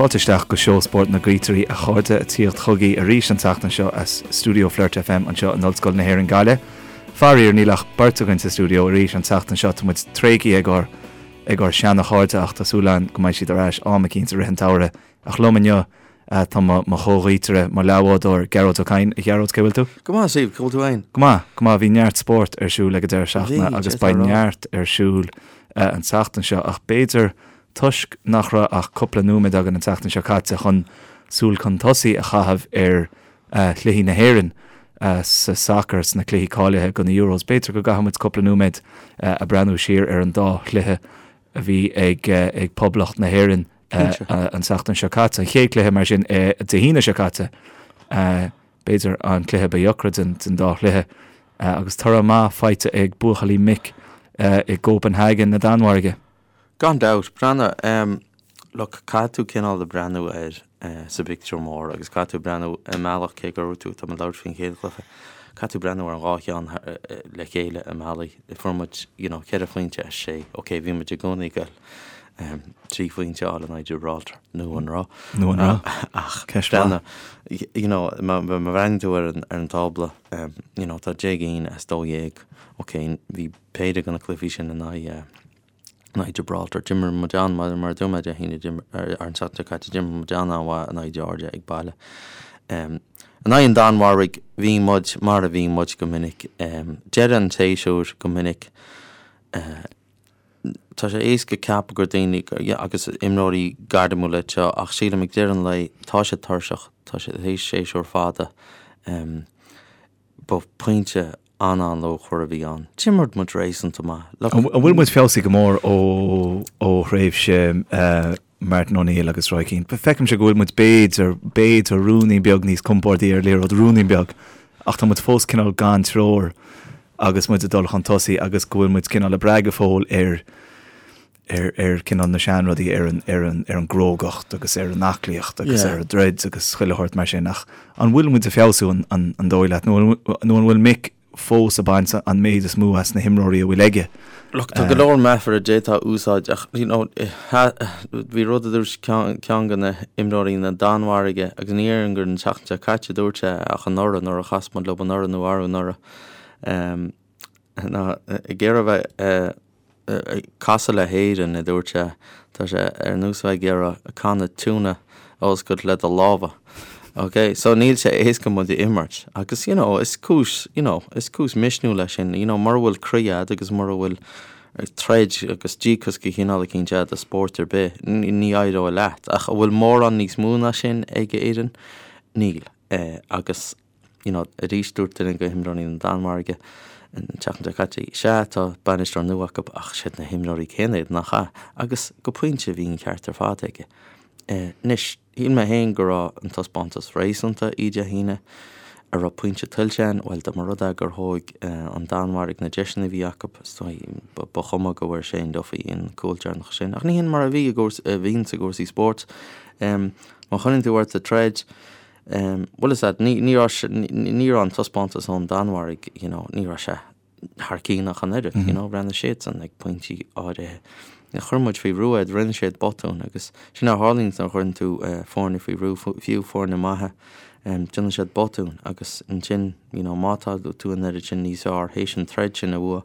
Fáilte isteach go Seó Spóirt na nGaotairí a chairde, ag tíocht chugaibh arís an tseachtain seo as stiúideo Flirt FM anseo in Ollscoil na hÉireann Gaillimh. Faraor níl ach beirt againn sa stiúideo arís an tseachtain seo, tá muid tréigthe ag ár ag ár seana chairde ach tá súil againn go mbeidh siad ar ais am eicínt i rith an tsamhraidh. Ach liom inniu tá mo mo chomhghaotaire, mo leathbhádóir, Gearóid Ó Cadhain. A Ghearóid, cé bhfuil tú? Go maith, Steve, cá bhfuil tú fhéin? Go maith, go maith. Bhí neart spóirt ar siúl ag an deireadh seachtaine agus beidh neart ar siúl an tseachtain seo ach b'fhéidir Toisc nach raibh ach cúpla nóiméad againn an tseachtain seo caite chun súil chun tosaigh a chaitheamh ar chluichí na hÉireann sa sacar sna cluichí cáilithe do na Euros, b'fhéidir go gcaithfidh muid cúpla nóiméad a breathnú siar ar an dá chluiche a bhí ag Poblacht na hÉireann an tseachtain seo caite. An chéad chluiche mar sin Dé hAoine seo caite, b'fhéidir an cluiche ba dheacra den dá chluiche agus toradh maith faighte ag buachaillí Mick i gCópenhagen na Danmhairge. Gan dabht, breathnaigh, em, look, caithfidh tú cineál de breathnú air eh sa bpictiúr mór agus caithfidh tú breathnú i mbealach cé go raibh tú, tá mé ag labhairt faoin chéad chluiche, caithfidh tú breathnú ar an dhá cheann le chéile i mbealaí. Fuair muid, you know, ceithre phointe as sé, ok, bhí muid i gcónaí ag goil em trí phointe a fháil in aghaidh Gibraltar, nó an raibh? Nó an raibh? Ach Ceist mhaith. breathnaigh, you know, má bhreathnaíonn tú ar an ar an tábla, em, you know, tá 10 gcinn as 12, ok, bhí péire de na cluichí sin in aghaidh in aghaidh Gibraltar. D'imir muid an, mar a dúirt mé Dé hAoine, d'imir, ar an tseachtain seo caite, d'imir muid an-an-mhaith in aghaidh Georgia ag baile. In aghaidh an Danmhairg, bhí muid mar a bhí muid go minic. Deireadh an tséasúir go minic, tá sé éasca ceapadh gur daoine, agus imreoirí gairmiúla iad seo, ach sílim ag deireadh an lae, tá siad tuirseach, tá siad théis séasúr fada. Ba pointe an-an-luachmhar a bhí ann. D'imir muid réasúnta maith. Look. An bhfuil muid feabhsaithe go mór ó ó thréimhse Martin O'Neill agus Roy Keane? Feicimse go bhfuil muid b'fhéidir, b'fhéidir ruainnín beag níos compórdaí ar liathróid, ruainnín beag, ach tá muid fós cineál gan treoir agus muid ag dul chun tosaigh agus go bhfuil muid cineál ag brath go fóill ar ar ar cineál na seanrudaí, ar an ar an ar an gcrógacht agus ar an aclaíocht agus ar an dtroid agus chuile shórt mar sin ach an bhfuil muid ag feabhsú an an an dóigh leat nó an nó an bhfuil Mick fós ag baint an méid is mó as na himreoirí a bhfuil aige? Look, tá go leor meafar a d'fhéadfá a úsáid ach you know bhí rud a dúirt ceann ceann de na himreoirí na Danmhairge agus ní déarfainn gur an tseachtain seo caite a dúirt sé ach anuraidh nuair a chas muid leo anuraidh nó arú anuraidh ná ag iarraidh a bheith ag casadh le hÉirinn, a dúirt sé, tá sé ar nós bheith ag iarraidh canna tuna a oscailt le do lámha. Ok, so níl sé éasca muid a imirt agus you know is cúis, you know, is cúis misniúil é sin, you know, mura bhfuil croí a'd agus mura bhfuil troid agus díocas de chineál eicínt a'd i spórt ar bith, ní éireoidh leat. Ach an bhfuil mórán níos mó ná sin ag Éirinn? Níl. Agus. you know, arís dúirt duine de himreoirí na Danmhairge an tseachtain seo caite, sea, tá bainisteoir nua acu ach siad na himreoirí céanna iad, nach ea? Agus go pointe bhí an ceart ar fad aige. Anois, shíl mé féin go raibh an taispeántas réasúnta oíche Dé hAoine. An raibh pointe tuillte againn, bhuel, dá mba rud é gur thóg an Danmhairg na deiseanna a bhí acu, is dóigh, ba chuma go bhfuair Shane Duffy an cúl deireanach sin. Ach ní hin mar a bhí i gcúrsaí, a bhíonn i gcúrsaí spóirt. Má choinníonn tú ort ag troid, Bhuel is ea, ní raibh, ní raibh an taispeántas ón Danmhairg, you know, ní raibh sé thar cinn ach an oiread, you know, bhreathnaigh siadsan ag pointí áirithe. Chuir muid faoi bhrú iad, rinne siad botúin agus sin a tharlaíonn nuair a chuireann tú foirne faoi bhrú, fiú foirne maithe, déanann siad botúin agus ansin, you know, má tá tú an oiread sin níos fearr théis an troid sin a bhua,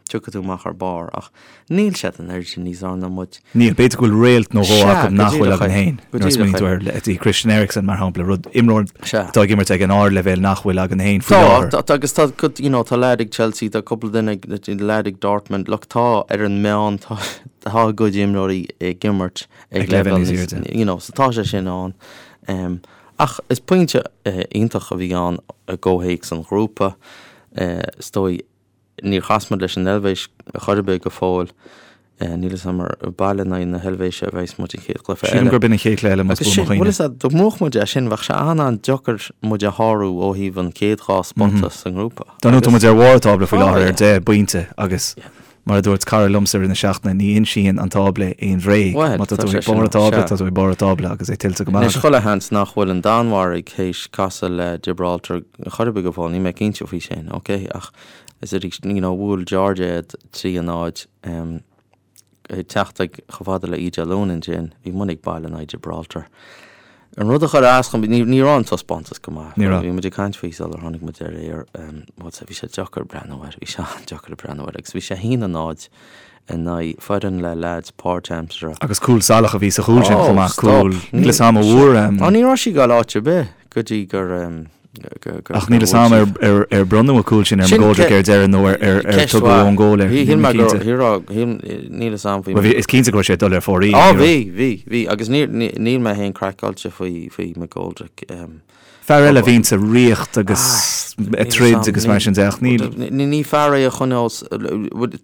tiocfaidh tú amach ar barr ach níl siad an oiread sin níos fearr ná muid. Níl, b'fhéidir go bhfuil réalt nó dhó acu nach bhfuil againn féin. Nuair a smaoiníonn tú ar leithéidí Christian Eriksen mar shampla, rud, imreoir atá ag imirt ag an ardleibhéal nach bhfuil againn féin faoi láthair. Tá, agus tá, you know, tá leaid ag Chelsea, tá cúpla duine ag, leaid ag Dortmund, look, tá ar an meán, tá, tá a gcuid imreoirí ag imirt ag leibhéal níos airde, you know, so tá sé sin ann. Um, ach is pointe iontach a bhí ann i gcomhthéacs an ghrúpa, is dóigh, Níor chas muid leis an Eilvéis chor ar bith go fóill. Níl a fhios agam ar baile in aghaidh na hEilvéise a bheas muid an chéad chluiche eile. Sílim gurb in an chéad chluiche eile más buan mo chuimhne. Bhuel is ea, dá mbuafadh muid é sin bheadh sé an-an-deacair muid a shárú ó thaobh an chéad dhá spota sa ngrúpa. Dar ndóigh tá muid ar bharr an tábla faoi láthair ar deich bpointe agus Mar a dúirt cara liomsa i rith na seachtaine, ní insíonn an tábla aon bhréag. Má tá tú ag barr an tábla, tá tú ag barr an tábla agus é tuillte go maith agat. Anois, chuile sheans nach bhfuil an Danmhairg théis casadh le Gibraltar chor ar bith go fóill, níl mé cinnte faoi sin, ok? Ach is arís, you know, bhuail Georgia iad 3 a 0. Ag teacht ag chomh fada le Oíche Dé Luain ansin, bhí muid ag baile in aghaidh Gibraltar. An rud a chuir as dhom, ní ní raibh an taispeántas go maith. Ní raibh. Bhí muid ag caint faoi sular tháinig muid ar aer, bhuel bhí sé deacair breathnú air, bhí sé an-deacair breathnú air agus bhí sé 1-0 in aghaidh foireann le leaids páirtaimseartha. Agus cúl salach a bhí sa chúl sin chomh maith, cúl, níl 'fhios a'm an bhfuair. Ó ní raibh sí ag dul áit ar bith go dtí gur Ach níl 'fhios a'm ar ar bronnadh an cúl sin ar McGoldrick ar deireadh nó ar ar tugadh own goal air. Shíl mé go níl 'fhios a'm faoi. Bhuel is cinnte go raibh sé ag dul ar fóraoil. Á bhí, bhí, bhí agus níl níl mé féin craiceáilte faoi faoi McGoldrick. Fear eile a bhíonn sa ríocht agus ag troid agus mar sin de ach níl. Ní fear é a choinneos,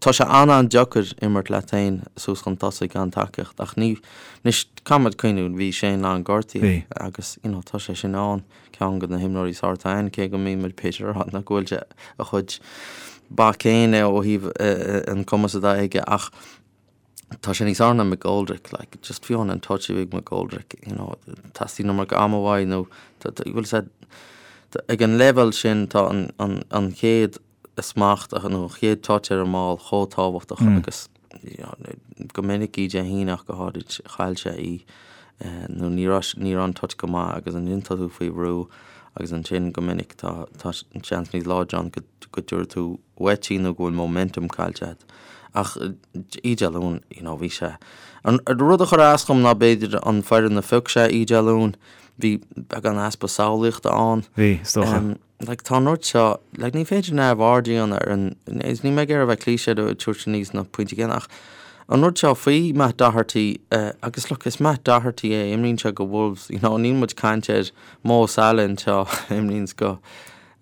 tá sé an-an-deacair imirt leat féin suas chun tosaigh gan tacaíocht ach ní, anois caithfidh muid cuimhniú bhí Shane Long gortaithe agus you know tá sé sin ann. ceann de na himreoirí is fearr atá ann, cé go mbíonn muid b'fhéidir a rá nach bhfuil sé a chuid bac féin ó thaobh an cumas atá aige ach tá sé níos fearr ná McGoldrick, like, just fiú an touch a bhí ag McGoldrick, you know, teastaíonn an iomarca ama uaidh nó bhfuil sé ag an leibhéal sin tá an, an, an chéad smacht nó an chéad touch ar an mball chomh tábhachtach agus go minic Oíche Dé hAoine ach go háirid chaill sé í nó ní raibh ní raibh an touch go maith agus ansin tá tú faoi bhrú agus ansin go minic tá tá seans níos láidre ann go go dtabharfaidh tú uait í nó go bhfuil momentum caillte agat. Ach Oíche Dé Luain you know bhí sé an rud a chuir as dhom ná b'fhéidir an foireann a phioc sé Oíche Dé Luain bhí beagán easpa samhlaíochta ann. Bhí, is dócha. Like, tá an rud seo, like, ní féidir neamhaird a dhéanamh ar an, is níl mé ag iarraidh a bheith cliché ag tabhairt aníos na pointí céanna, ach an rud seo faoi Matt Doherty, eh, agus look, is Matt Doherty é, imríonn sé go Wolves, you know, níl muid ag caint ar Mo Salah anseo, imríonn go,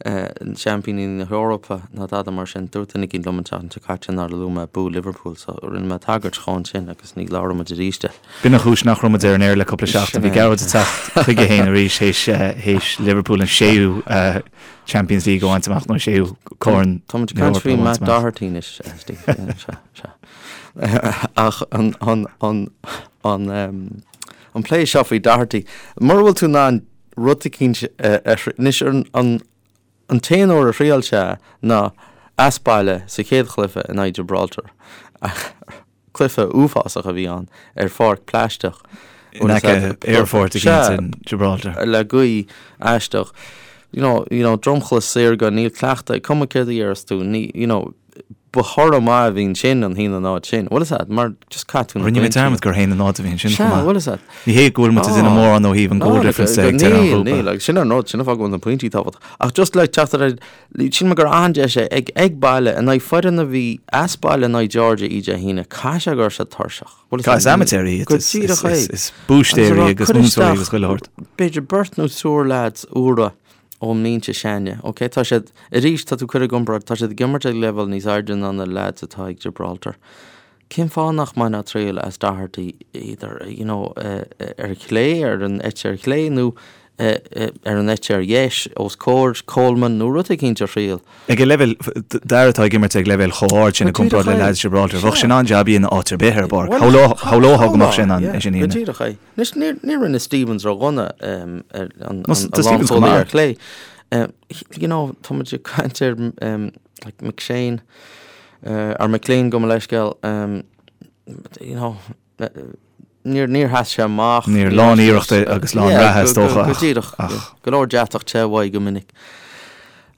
eh, seaimpíní na hEorpa ná dada mar sin. Dúirt duine éicint liom an tseachtain seo caite nár luaigh mé bua Liverpool, so rinne mé tagairt dhó ansin agus ní labhróidh muid arís de. B'in an chúis nach raibh muid ar an aer le cúpla seachtain. Bhí Gearóid ag teacht chuige féin arís théis Liverpool an séú Champions League a bhaint amach nó an séú corn Tá muid ag caint faoi Matt Doherty anois, Steve. Sea, sea. Ach an, an, an, an, an plé seo faoi Doherty, mura bhfuil tú in ann rud eicínt a, anois an, an, An t-aon uair a thriail sé ná as baile sa chéad chluiche in aghaidh Gibraltar. Cluiche uafásach a bhí ann ar pháirc plaisteach. In aice aerfort eicínt in Gibraltar. Le gaoth aisteach. You know, you know, dromchla saorga, níl cleachtadh, cuma céard a dhéarfas tú, ní, you know, ba thoradh maith a bhí ansin an 1-0 sin. Bhfuil fhios a'd, mar just caith tú na Rinne mé dearmad gur 1-0 a bhí ansin chomh maith. Sea, bhfuil fhios a'd. Ní hé go bhfuil muid ag déanamh mórán ó thaobh an goal difference de ag deireadh an ghrúpa. Níl, níl, agus sin an rud, sin an fáth go bhfuil na pointí tábhachtach. Ach just le teacht ar aghaidh, Shíl mé gur an-deis é ag ag baile in aghaidh foireann a bhí as baile in aghaidh Georgia Oíche Dé hAoine, caithfidh sé go raibh siad tuirseach. Bhfuil fhios Is a'd, amaitéirí iad, go díreach é. is búistéirí agus Cuir múinteoirí agus chuile shórt. B'fhéidir beirt nó triúr lads úra ón mbinse s'againne. Ok, tá siad, arís, tá tú ag cur i gcomparáid, tá siad ag imirt ag leibhéal níos airde ná na lads atá ag Gibraltar. Cén fáth nach mbainfeá triail as Doherty either, you know, ar chlé, ar an eite ar chlé nó ar an eite ar dheis, os comhair Coleman nó rud eicínt a thriail? Ag an leibhéal, d'fhear atá ag imirt ag leibhéal chomh hard sin i gcomparáid le leaids Gibraltar, bheadh sé in ann jab a dhéanamh áit ar bith ar an bpáirc. Shamhlófá go mbeadh sé in ann é sin a dhéanamh. Go díreach é. Anois, níor rinne Stephens ródhona ar an lánchúlaí ar chlé. You know, tá muid ag caint ar like McShane, or McLean gabh mo leithscéal, you know, níor níor sheas sé amach. Níor lán iarrachta agus lán reatha is dócha ach. Go díreach, go leor deatach te uaidh go minic.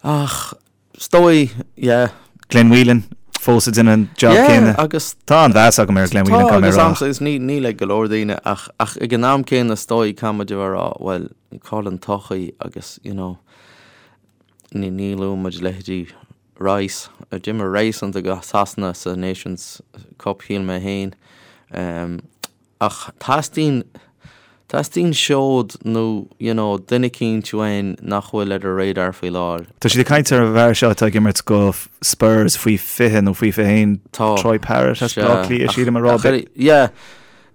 Ach is dóigh, yeah. Glenn Whelan fós ag déanamh an job céanna. Yeah, agus. Tá an-mheas agam ar Glenn Whelan, caithfidh mé a rá. Tá, agus níl ag go leor daoine ach ach ag an am céanna is dóigh caithfidh muid a bheith ag rá, bhuel, cá bhfuil an todhchaí agus, you know, ní ní luann muid leithéidí Rice. D'imir Rice iontach do Shasana sa Nations Cup, shíl mé féin. Ach teastaíonn, teastaíonn seod nó, you know, duine eicínt uainn nach bhfuil ar an radar faoi láthair. Tá siad ag caint ar an bhfear seo atá ag imirt go Spurs faoi 20 nó faoi 21, Troy Parrott as Baile Átha Cliath, sílim a rá. Yeah.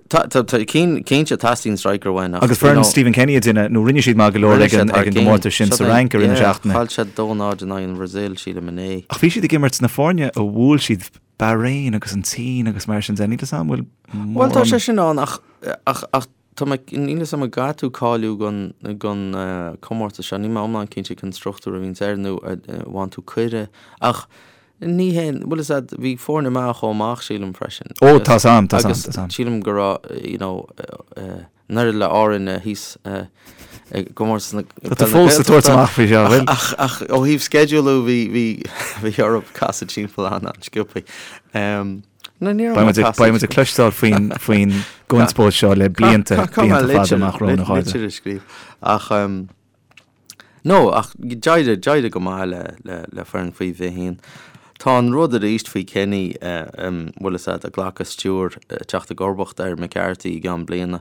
Tá, tá, tá, cinnte teastaíonn striker uainn ach, Agus foireann Stephen Kenny a déanamh, nó rinne siad maith go leor ag an gcomórtas sin sa Fhrainc i rith na seachtaine. Chaill siad 2-0 in aghaidh an Bhrasaíl, sílim, inné. Ach bhí siad ag imirt na foirne a bhuail siad Bahrain agus an tSín agus mar sin de, níl 'fhios a'm bhfuil mórán. Bhuel, tá sé sin ann ach, ach, ach tá mé, níl 'fhios a'm an gcaithfidh tú cáiliú don, don comórtas seo, níl mé iomlán cinnte cén struchtúr a bhíonns air nó an bhfaigheann tú cuireadh ach. Ní hé, bhfuil fhios a'd, bhí foirne maith a chuaigh amach, sílim, freisin. Ó, tá's a'm, tá's a'm, tá's a'm. Agus sílim go raibh, you know, an oiread le Árainn thíos i gcomórtas na Tá tú fós ag tabhairt amach faoi seo, bhfuil? Ach, ach ó thaobh sceidealú bhí, bhí, bhí orthu casadh timpeall an-sciobthaí. No, ní raibh mé ag casadh. Beidh muid ag cloisteáil faoin, faoin gconspóid seo le blianta, blianta fada amach romhainn, a chairde. Litir a scríobh. Ach, No, ach d'éirigh, d'éirigh go maith le, le, le foireann faoi 21. Tá an rud arís faoi Kenny, bhfuil fhios a'd, ag glacadh stiúir, teacht i gcomharbacht ar McCarthy i gceann bliana.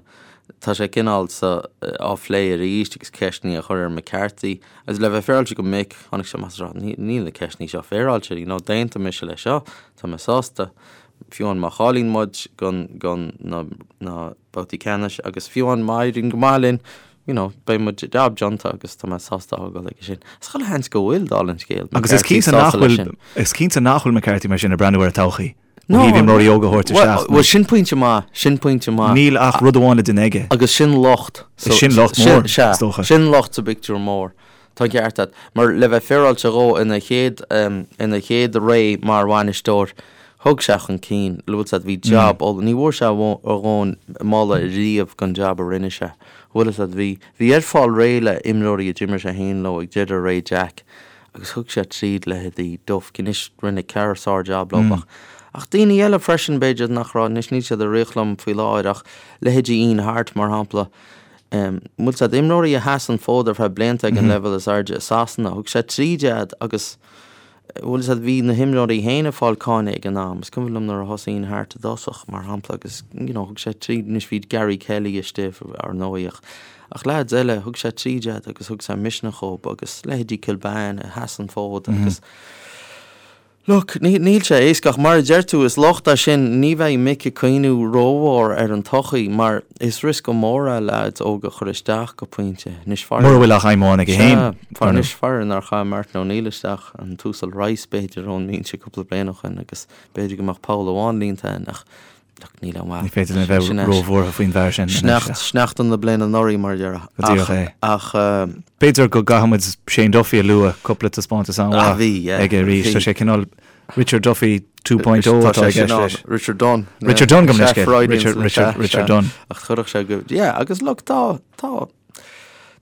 Tá sé cineál sa, á phlé arís agus ceisteanna á chur ar McCarthy. Agus le bheith féaráilte go Mick, tháinig sé amach is a rá, níl na ceisteanna seo féaráilte, you know, d'aontaigh mise le seo, tá mé sásta. Fiú amháin má chailleann muid don, don na, na babhtaí ceannais agus fiú amháin má éiríonn go maith linn, you know, beidh mo jab déanta agus tá mé sásta a fhágáil aige sin. Is chuile sheans go bhfuil, dála an scéil, Agus is cinnte nach bhfuil, is cinnte nach bhfuil McCarthy mar sin ag breathnú ar an todhchaí. Ó thaobh imreoirí óga a thabhairt isteach. Bhuel, sin pointe maith, sin pointe maith. Níl ach rud amháin le déanamh aige. Agus sin locht. Is sin locht mór, is dócha. Sin locht sa bpictiúr mór. Tá an ceart agat. Mar le bheith féaráilte dhó ina chéad, ina chéad ré mar bhainisteoir, thug sé chun cinn, bhfuil fhios a'd, bhí jab oll, ní bhfuair sé a dhóthain moladh riamh don jab a rinne sé. Bhfuil fhios a'd, bhí, bhí air fáil réidh le imreoirí a d'imir sé féin leo ag deireadh ré Jack agus thug sé tríd leithéidí Duff, anois rinne Kerr sár-jab leo ach, ach daoine eile freisin b'fhéidir nach raibh, anois níl siad ag rith liom faoi láthair ach leithéidí Ian Harte mar shampla, bhfuil fhios a'd, imreoirí a sheas an fód ar feadh blianta ag an leibhéal is airde i Sasana, thug sé tríd iad agus bhfuil fhios a'd, bhí na himreoirí féin ag fáil cáineadh ag an am. Is cuimhin liom nuair a thosaigh Ian Harte i dtosach, mar shampla, agus you know, thug sé tríd, anois bhí Gary Kelly istigh ar ndóigh ach, ach leaids eile, thug sé tríd iad agus thug sé misneach dhóibh agus leithéidí Kilbane a sheas an fód agus Look, níl sé éasca ach mar a deir tú, is locht é sin, ní bheidh Mick ag cuimhniú rómhór ar an todhchaí mar is riosca mór é leaids óga a chur isteach go pointe. Anois faraor. Mura bhfuil ach aidhm amháin aige féin. Sea, anois faraor nár chaith Martin O'Neill isteach an tUasal Rice b'fhéidir ón mbinse cúpla bliain ó shin agus b'fhéidir go mbeadh poll amháin líonta againn ach Look, níl aon mhaith. Ní féidir linn a bheith róbhuartha faoin bhfear sin. Sneachta, sneachta na bliana anuraidh, mar a déarfá. Go díreach é. Ach. B'fhéidir go gcaithfidh muid Shane Duffy a lua, cúpla taispeántas an-mhaith aige arís. Tá sé cineál Richard Duffy 2.0 atá i gceist leis. Richard Dunne. Richard Dunne gabh mo leithscéal. Richard, Richard, Richard Dunne. Ach chuirfeadh sé go, yeah, agus look, tá, tá,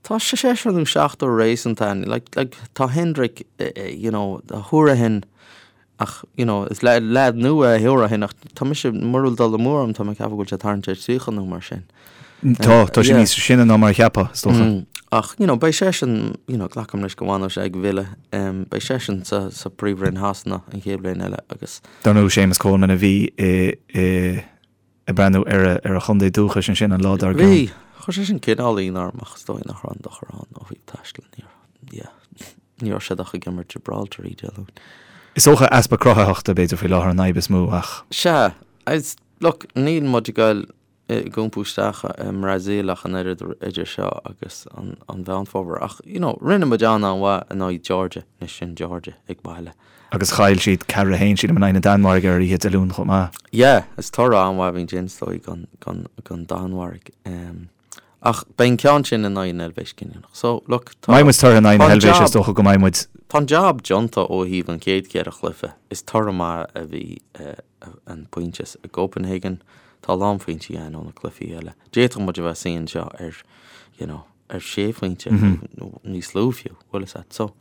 tá seisear nó seachtar réasúnta ann. Like, like, tá Hendrick, you know, Hourihane, Ach, you know, is leaid nua é Hourihane ach tá mise, mura bhfuil dul amú orm, tá mé ag ceapadh go bhfuil sé ag tarraingt ar 30 nó mar sin. Tá, tá sé níos sine ná mar a cheapfá, is dócha. Ach, you know, beidh seisean, you know, glacaim leis go bhfanfaidh sé ag Villa, beidh seisean sa, sa Príomhroinn Shasana an chéad bhliain eile agus. Dar ndóigh, Séamus Coleman a bhí i, i, ag breathnú ar a, ar a chontae dúchais ansin an lá dár gcionn. Bhí, chuir sé sin cineál ionadh orm ach is dóigh nach raibh aon dochar ann ó thaobh taistil, ní raibh, yeah, ní raibh siad ach ag imirt Gibraltar oíche Dé Luain. Is dócha easpa cruthaitheachta b'fhéidir faoi láthair an fhadhb is mó ach. Sea, is, look, níl muid ag goil ag iompú isteach i mBrasaíl ach an oiread idir seo agus an Mheán Fómhair ach, you know, rinne muid an-an-mhaith in aghaidh Georgia, anois sin Georgia ag baile. Agus chaill siad 4-1, sílim, in aghaidh na Danmhairge ar oíche Dé Luain chomh maith. Yeah, is toradh an-mhaith a bhí ansin, is dóigh, don Danmhairg. Ach beidh an ceann sin in aghaidh na hEilvéise cinniúnach. So, look, tá. Má bhíonn muid tortha in aghaidh na hEilvéise, is dócha go mbeidh muid. Tá an jab déanta ó thaobh an chéad cheithre chluiche. Is toradh maith a bhí an pointe i gCopenhagen. Tá a lán pointí againn ó na cluichí eile. D'fhéadfadh muid a bheith ag suí anseo ar, you know, ar sé phointe nó níos lú fiú, bhfuil fhios a't. So,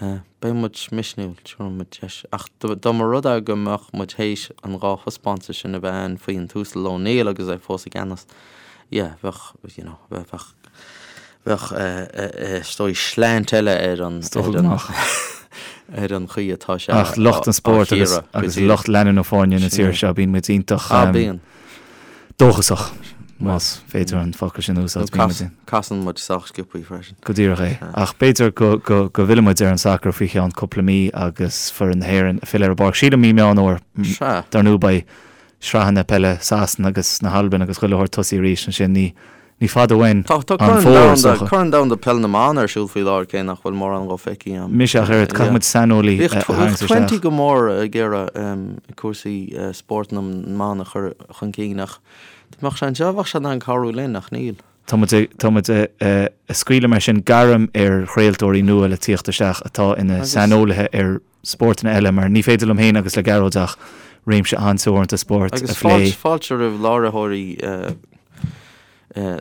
beidh muid misniúil, tabharfaidh muid deis. Ach dá mba rud é go mbeadh muid théis an dá thaispeántas sin a bheith ann faoi an tUasal O'Neill agus é fós i gceannas, yeah, bheadh, you know, bheadh, bheadh, is dóigh, slant eile ar an, ar an, ar an chaoi atá sé Ach lucht an spóirt agus, agus lucht leanúna foirne na tíre seo, bíonn muid iontach. Ah, bíonn. dóchasach, más féidir an focal sin a úsáid. Nó casann muid sách sciobthaí freisin. Go díreach é. Ach b'fhéidir go bhfillfidh muid ar an sacar faoi cheann cúpla mí agus foireann na hÉireann ag filleadh ar an bpáirc. Sílim mí Meán Fómhair. Dar ndóigh beidh sraitheanna peile Sasana agus na hAlban agus chuile shórt tosaithe arís ansin. Ní Ní fada uainn an fómhar, is dócha. Tá Corn Domhanda Peil na mBan ar siúl faoi láthair, cé nach bhfuil mórán dhó feicthe agam. Mise ach oiread, caithfidh muid saineolaí a tharraingt isteach. Bhíodh Twenty go mór ag iarraidh cúrsaí spóirt na mban a chur chun cinn ach dá mbeadh sé anseo bheadh sé in ann cabhrú linn ach níl. Tá muid ag, tá muid ag scaoileadh mar sin gairm ar chraoltóirí nua le tíocht isteach atá ina saineolaithe ar spórtanna eile mar ní féidir liom féin agus le Gearóid ach réimse an-teoranta spóirt a phlé. Agus fáilte roimh láithreoirí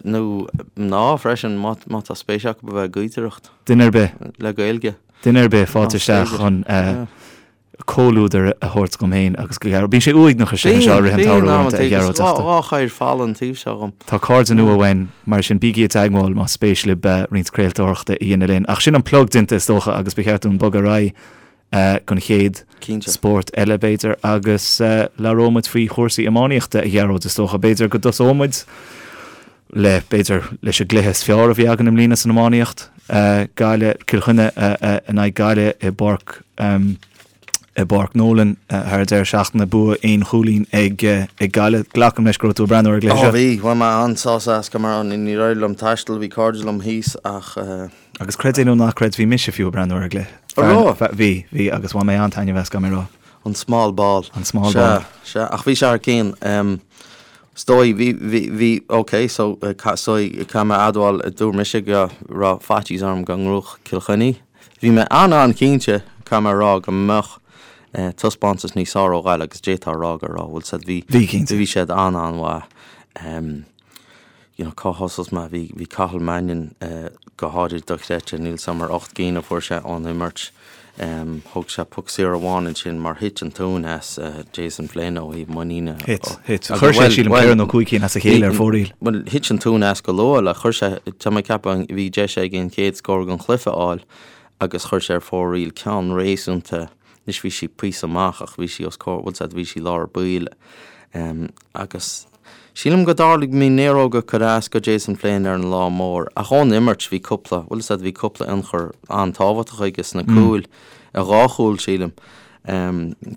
nó mná freisin má tá spéis acu a bheith ag gaotaireacht. Duine ar bith. Le Gaeilge. Duine ar bith, fáilte isteach chun comhluadar a thabhairt dhom féin agus do Ghearóid. Bíonn sé uaigneach istigh anseo i rith an tsamhraidh uaireanta, a Ghearóid, ach tá. Dhá choir folamh an taobh seo dhom. Tá cairde nua uainn, mar sin bígí i dteagmháil más spéis libh roinnt craoltóireachta a dhéanamh linn. Ach sin an plug déanta is dócha agus ba cheart dúinn bogadh ar aghaidh don chéad spórt eile b'fhéidir agus labhróidh muid faoi chúrsaí iománaíochta, a Ghearóid, is dócha. B'fhéidir go dtosóidh muid le, b'fhéidir, leis an gcluiche is fearr a bhí againn i mbliana san iománaíocht, Gaillimh, Cill Chainnigh in aghaidh Gaillimh i bPáirc, i bPáirc Nolan thar an deireadh seachtaine, bua aon chúilín ag Gaillimh. Glacaim leis go raibh tú ag breathnú ar an gcluiche seo. Ó bhí, bhain mé an-sásamh as, go mar níor éirigh liom taisteal, bhí cairde liom thíos ach. Agus creid é nó ná creid, bhí mise fiú ag breathnú ar an gcluiche. An raibh? Bhí, bhí, agus bhain mé an-taitneamh as, caithfidh mé a rá. An small ball. An small ball. Sea, sea, ach bhí sé thar cionn. Is dóigh, bhí, bhí, bhí, ok, so, is dóigh, caithfidh mé a admháil, dúirt mise go raibh faitíos orm go ngnóthódh Cill Chainnigh. Bhí mé an-an-chinnte, caithfidh mé a rá, go mbeadh taispeántas níos fearr ó Ghaillimh agus d'fhéadfá a rá go raibh, bhfuil siad, bhí, Bhí, cinnte. bhí siad an-an-mhaith. You know, cá thosós mé? Bhí, bhí Cathal Mannion go háirid dochreidte, níl 's a'm ar 8 gcinn a fuair sé ón imirt. Thóg sé poc saor amháin ansin mar thit an tóin as Jason Flynn ó thaobh muiníne. Thit, thit. Chuir sé, sílim, ceithre nó cúig cinn as a chéile ar fóraoil. Bhuel, thit an tóin as go luath, like, chuir sé, tá mé ag ceapadh, bhí deis aige an chéad scór den chluiche a fháil agus chuir sé ar fóraoil ceann réasúnta, anois bhí sí píosa amach ach bhí sí os comhair, bhfuil 's a'd, bhí sí lár baill agus. Sílim go dtarlaigh bhí néaróga ag cur as go Jason Flynn ar an lá mór, ach ón imirt bhí cúpla, bhfuil 'fhios a'd, bhí cúpla ionchur an-tábhachtach aige sna cúil, dhá chúl sílim,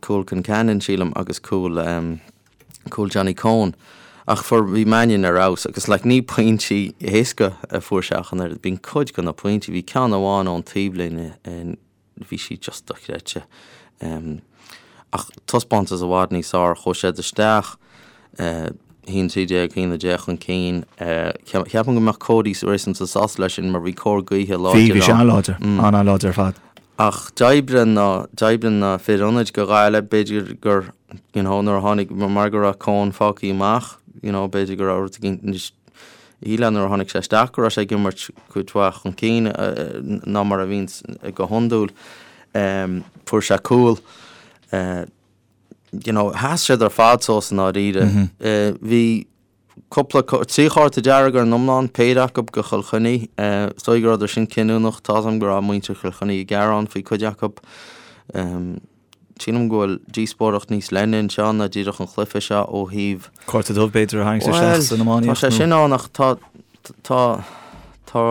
cúl Concannon sílim agus cúl, cúl Johnny Coen. Ach fuair, bhí Mannion ar fheabhas agus like ní pointí éasca a fuair sé ach an oiread, bíonn cuid de na pointí, bhí ceann amháin ón taobhlíne in, bhí sí just dochreidte. Ach taispeántas i bhfad níos fearr, chuaigh siad isteach, 1-13, 1-10 chun cinn. Ceapaim go mbeadh Cody réasúnta sásta leis sin mar bhí cóir gaoithe láidir ann. Bhí, bhí sé an-láidir, an-láidir ar fad. Ach d'oibrigh na, d'oibrigh na fir ionaid go Gaillimh, b'fhéidir gur, you know, nuair a tháinig, mar go raibh Coen fágtha amach, you know, b'fhéidir go raibh rud éigin níos, Shílfeá nuair a tháinig sé isteach go raibh sé ag imirt cuid mhaith chun cinn ná mar a bhíonns go hiondúil. Fuair sé cúl. You know, sheas siad ar fad suas i ndáiríre. Bhí cúpla, 3 chárta dearg ar an iomlán, péire acu go Chill Chainnigh. Is dóigh go rabhadar sin cinniúnach. Tá's agam go raibh muintir Chill Chainnigh ag gearán faoi cuid acu. Sílim go bhfuil díospóireacht níos leithne anseo ná díreach an chluiche seo ó thaobh. Cárta dubh b'fhéidir a tharraingt isteach san iománaíocht. Tá sé sin ann ach tá tá tá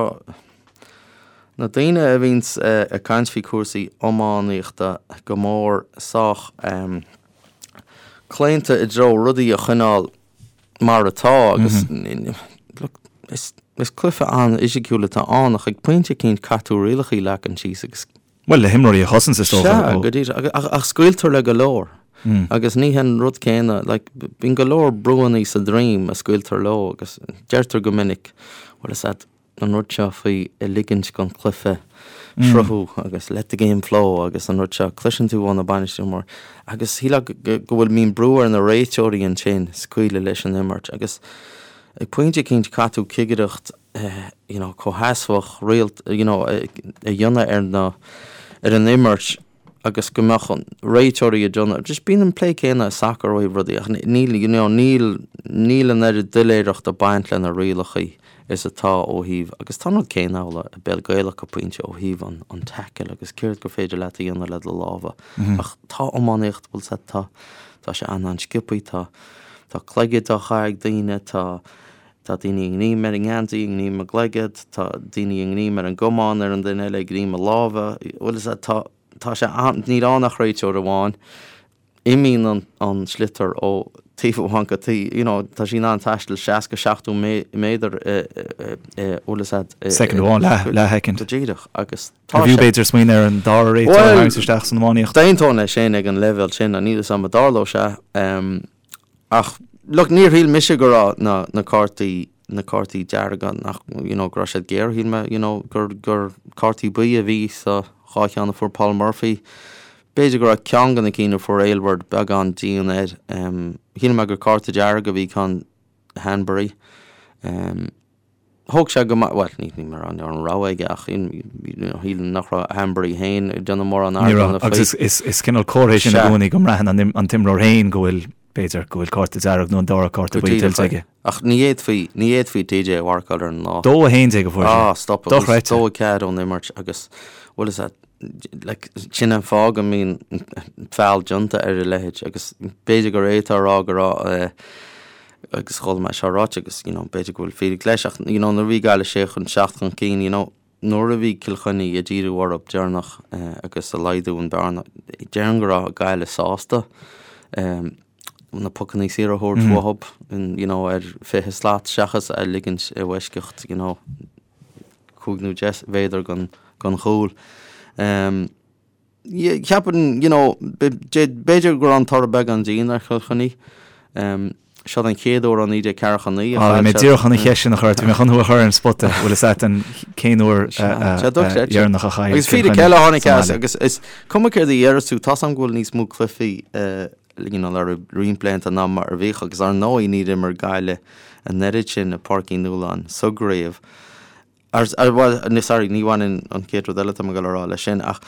na daoine a bhíonns ag caint faoi cúrsaí iománaíochta go mór sách claonta i dtreo rudaí a choinneáil mar atá agus look is is cluiche an-fhisiciúil atá ann ach ag pointe eicínt caithfidh tú rialacha a leagan síos agus Bhuel, le himreoirí a chosaint is dócha. Sea, go díreach. Ach scaoiltear le go leor. Agus ní hin an rud céanna. Like, bíonn go leor brúanna sa droim a scaoiltear leo agus deirtear go minic, bhfuil fhios a'd, an rud seo faoi a ligint don chluiche sruthú agus let the game flow agus an rud seo, cloiseann tú ó na bainisteoirí móra. Agus shílfeá go bhfuil, mbíonn brú ar na réiteoirí ansin scaoileadh leis an imirt agus ag pointe eicínt caithfidh tú cigireacht you know, comhsheasmhach, rialta, you know, a dhéanamh ar na, ar an imirt agus go mbeadh an réiteoirí ag déanamh, just bíonn an plé céanna i sacar ó thaobh rudaí ach níl, you know, níl, níl an oiread doiléireachta ag baint le na rialacha is atá ó thaobh, agus tá an rud céanna amhlaidh i bpeil Gaelach go pointe ó thaobh an, an tackle agus céard gur féidir leat a dhéanamh le do lámha. Ach tá iománaíocht, bhfuil 's a'd, tá, tá sé an-an-sciobthaí, tá, tá cloigead á chaitheamh ag daoine, tá, Tá daoine ag greim ar an ngeansaí, ag greim a gcloigead, tá daoine ag greim ar an gcamán ar an duine eile, ag greim a lámha, bhfuil fhios a'd, tá, tá sé an, níl ann ach réiteoir amháin, imíonn an, an sliotar ó taobh amháin go taobh, you know, tá sí in ann taisteal 60, 70 méadar i, i, i, bhfuil fhios a'd, i, Soicind amháin, leath, leathshoicind. Go díreach, agus tá sé. B'fhiú b'fhéidir smaoineamh ar an dara réiteoir a tharraingt isteach san iománaíocht. D'aontóinn leis sin ag an leibhéal sin, níl fhios a'm an dtarlódh sé. Ach, look, níor shíl mise go raibh na, na cártaí. na cártaí dearga nach, you know, go raibh siad géar, shíl mé, you know, gur, gur cártaí buí a bhí sa dhá cheann a fuair Paul Murphy. B'fhéidir go raibh ceann de na cinn a fuair Aylward beagán dian air. Shíl mé gur cárta dearg a bhí ceann Hanbury. Thóg sé go maith, bhuel, ní ní mar an an rogha aige ach shílim nach raibh Hanbury féin ag déanamh mórán Ní raibh, agus is, is, is cineál comhartha é sin i gcónaí go mbraitheann an, an t-imreoir féin go bhfuil, b'fhéidir, go bhfuil cárta dearg nó an dara cárta buí tuillte aige. Ach ní fhéadfaí, ní fhéadfaí TJ a mharcáil ar an lá. 2-11 a fuair sé. Ah, stop. Dochreidte. 2-4 ón imirt agus, bhuel is like, sin an fáth go mbíonn feall déanta ar a leithéid agus b'fhéidir gur é atá a rá go raibh eh, agus chuala mé seo ráite agus you know, b'fhéidir go bhfuil fíric leis ach you know, nuair a bhí Gaillimh sé chun seacht chun cinn you know, nuair a bhí Cill Chainnigh ag díriú orthu deireanach eh, agus ag laghdú an bearna déarfainn go raibh Gaillimh sásta eh, na pocanna saora a thabhairt mm. uathu you know, ar 20 slat seachas a ligint i bhfoisceacht you know, 5 nó 10 mhéadar gon chúl. Cheapfainn, you know, b'fhéidir go raibh an toradh beagán dian ar Chill Chainnigh. Seo an chéad uair ó 1949 a chaill siad. Bhí mé díreach chun an cheist sin a chur ort, bhí mé chun thú a chur ar an spota, bhfuil fhios agat an cén uair dheireanach a chaill Agus fíric eile a tháinig as agus is cuma céard a déarfas tú, tá's agam go bhfuil níos mó cluichí you know, le roinnt blianta ná mar a bhíodh agus ar ndóigh níor imir Gaillimh an oiread sin i Páirc Uí Nualláin sa gcraobh. Ar, ar, bhuel, ní, sorry, ní bhaineann an chéad rud eile atá mé ag dul a rá leis sin ach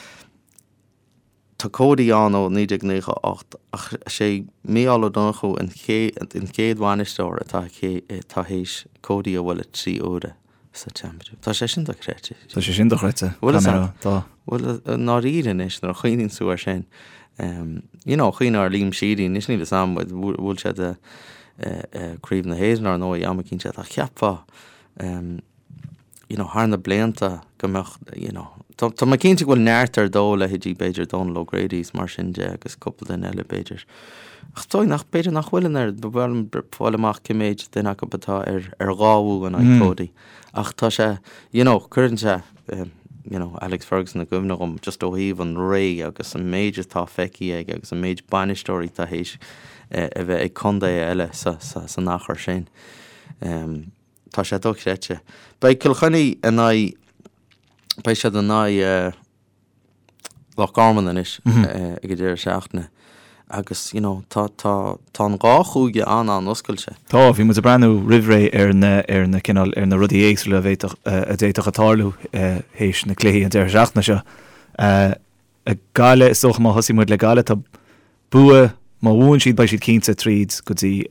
tá Cody ann ó 1998 ach is é Mícheál Ó Donnchú an chéad, an chéad bhainisteoir atá, atá théis Cody a bhualadh 3 huaire sa Championship. Tá sé sin dochreidte. Tá sé sin dochreidte. Bhfuil fhios agat? Tá. Bhuel, i ndáiríre anois nuair a chuimhníonn tú air sin, you know, cuimhnigh ar Liam Sheedy, anois níl fhios a'm, bhuail siad Craobh na hÉireann ar ndóigh am eicínt ach cheapfá, you know, thar na blianta go mbeadh, you know, tá, tá mé cinnte go bhfuil neart ar dóigh, leithéidí b'fhéidir Dónal O'Grady is mar sin de agus cúpla duine eile b'fhéidir. Ach is dóigh nach, b'fhéidir nach bhfuil an oiread, ba mhaith liom fáil amach cé méid duine acu atá ar, ar dhá bhua in aghaidh Cody. Ach tá sé, you know, cuireann sé, you know, Alex Ferguson i gcuimhne dhom just ó thaobh an ré agus an méid atá feicthe aige agus an méid bainisteoirí atá théis a bheith ag contaetha eile sa, sa, san achar sin. Tá sé dochreidte. Beidh Cill Chainnigh in aghaidh, beidh siad in aghaidh Loch Garman anois ag an deireadh seachtaine agus you know tá, tá, tá an dhá chúige an-an-oscailte. Tá, bhí muid ag breathnú roimh ré ar na, ar na cineál, ar na rudaí éagsúla a bhféadfadh, a d'fhéadfadh a tarlú théis na cluichí an deireadh seachtaine seo. Gaillimh, is dócha má thosaigh muid le Gaillimh, tá bua, má bhuann siad beidh siad cinnte tríd go dtí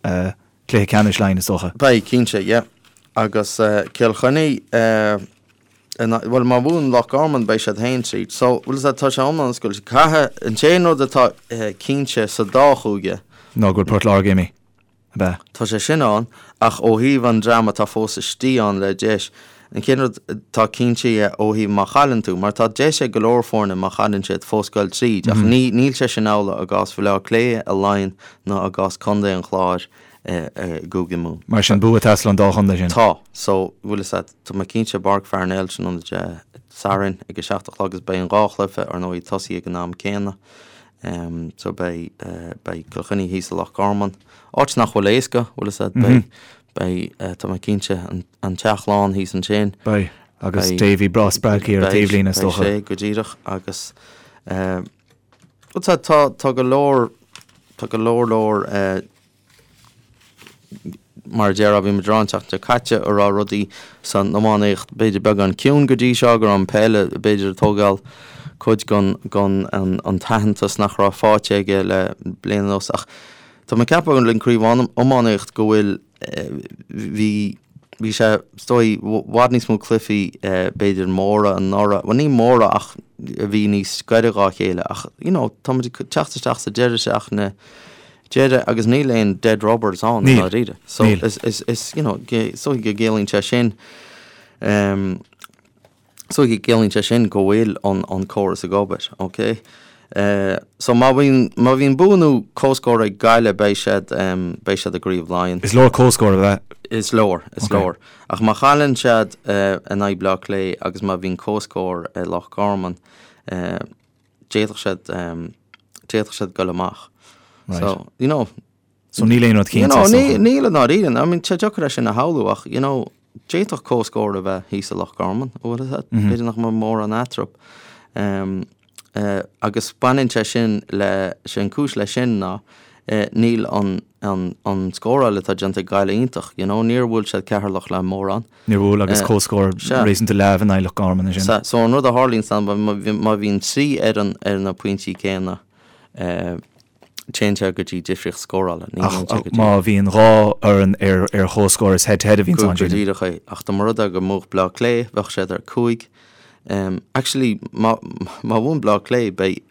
cluiche ceannais Laighean is dócha. Beidh, cinnte, yeah. Agus Cill Chainnigh, bhuel má bhuann Loch Garman beidh siad féin tríd. So, bhfuil fhios agat, tá sé iomlán oscailte. Caithfidh, an t-aon rud atá cinnte sa dá chúige. Ná go bhfuil Port Láirge imithe. Ab ea? Tá sé sin ann, ach ó thaobh an dream atá fós istigh ann le deis, an chéad rud atá cinnte ó thaobh má chailleann tú, mar tá deis ag go leor foirne má chailleann siad fós goil tríd, ach ní níl sé sin amhlaidh i gcás Bhaile Átha Cliath, i Laighin ná i gcás Contae an Chláir i gCúige Mumhan. Mar sin, bua ag teastáil ón dá chontae sin. Tá. So, bhfuil fhios agat, tá mé cinnte i bPáirc Pharnell tráthnóna Dé Sathairn ag a 7 a chlog agus beidh an dhá chluiche ar ndóigh ag tosaí ag an am céanna. So beidh beidh Cill Chainnigh thíos i Loch Garman, áit nach bhfuil éasca, bhfuil fhios agat, beidh beidh tá mé cinnte an an teach lán thíos ansin. Beidh, agus Davy breá spreagtha ar an taobhlíne is dócha. Beidh sé go díreach agus bhfuil fhios agat tá tá go leor tá go leor leor Mar a déarfá, bhí muid ag rá an tseachtain seo caite a raibh rudaí san iománaíocht b'fhéidir beagán ciúin go dtí seo, go raibh an peil b'fhéidir ag tógáil cuid den an t-aitheantas nach raibh faighte aige le bliain anuas. Ach tá mé ag ceapadh le craobh iománaíocht go bhfuil, bhí, bhí sé is dóigh i bhfad níos mó cluichí b'fhéidir móra anuraidh, bhuel ní móra ach a bhí níos gaire dhá chéile ach you know tá muid ag teacht isteach sa deireadh seachtaine deireadh agus níl aon dead rubbers ann i ndáiríre. So is is is you know is dóigh go gciallaíonn sé sin um, is dóigh go gciallaíonn sé sin go bhfuil an an córas ag obair, ok? Uh, so má bhíonn má bhíonn bua nó comhscór ag Gaillimh beidh siad um, beidh siad i gCraobh Laighean. Is leor comhscór a bheith. Is leor, is okay. leor. Ach má chailleann siad uh, in aghaidh Bleá Cliath agus má bhíonn comhscór i Loch Garman, uh, d'fhéadfadh siad, d'fhéadfadh siad goil amach. Right. So, you know, So níl aon rud cinnte, is dócha. Níl i ndáiríre. I mean, tá sé deacair é sin a shamhlú ach, you know, d'fhéadfadh comhscór a bheith thíos i Loch Garman, an bhfuil a fhios agat? B'fhéidir nach mbeadh mórán eatarthu. Agus baineann sé sin le, sé an cúis leis sin ná níl an, an, an scóráil atá déanta ag Gaillimh iontach, you know, níor bhuail siad Ceatharlach le mórán. Níor bhuail agus comhscór réasúnta leamh in aghaidh Loch Garman ansin. Sea, so an rud a tharlaíonn ná má bhíonn 3 fhoireann ar na pointí céanna, téann sé go dtí difríocht scórála. Ní Ach go dtí. má bhíonn 2 fhoireann ar ar chomhscór is head to head a bhíonn ann, Go díreach é. Ach dá mba rud é go mbuafadh Bleá Cliath, bheadh siad ar 5. Actually, má má bhuann Bleá Cliath, beidh,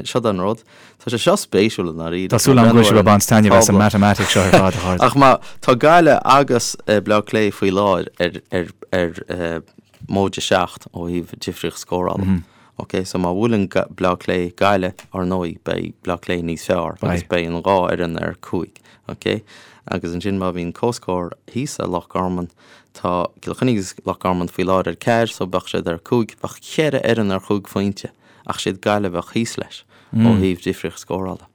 seo an rud, tá sé seo spéisiúil i ndáiríre. Tá súil agam go bhfuil sibh ag baint taitneamh as an matamaitic seo ar fad, a chairde. Ach má tá Gaillimh agus Bleá Cliath faoi láthair ar ar ar móide 7 ó thaobh difríocht scórála. Ok, so má bhuaileann Bleá Cliath Gaillimh, ar ndóigh, beidh Bleá Cliath níos fearr agus beidh an dhá fhoireann ar 5, ok? Agus ansin má bhíonn comhscór thíos i Loch Garman, tá Cill Chainnigh agus Loch Garman faoi láthair ar 4, so bheadh siad ar 5, bheadh cheithre fhoireann ar chúig phointe, ach siad Gaillimh a bheadh thíos leis ó thaobh difríocht scórála.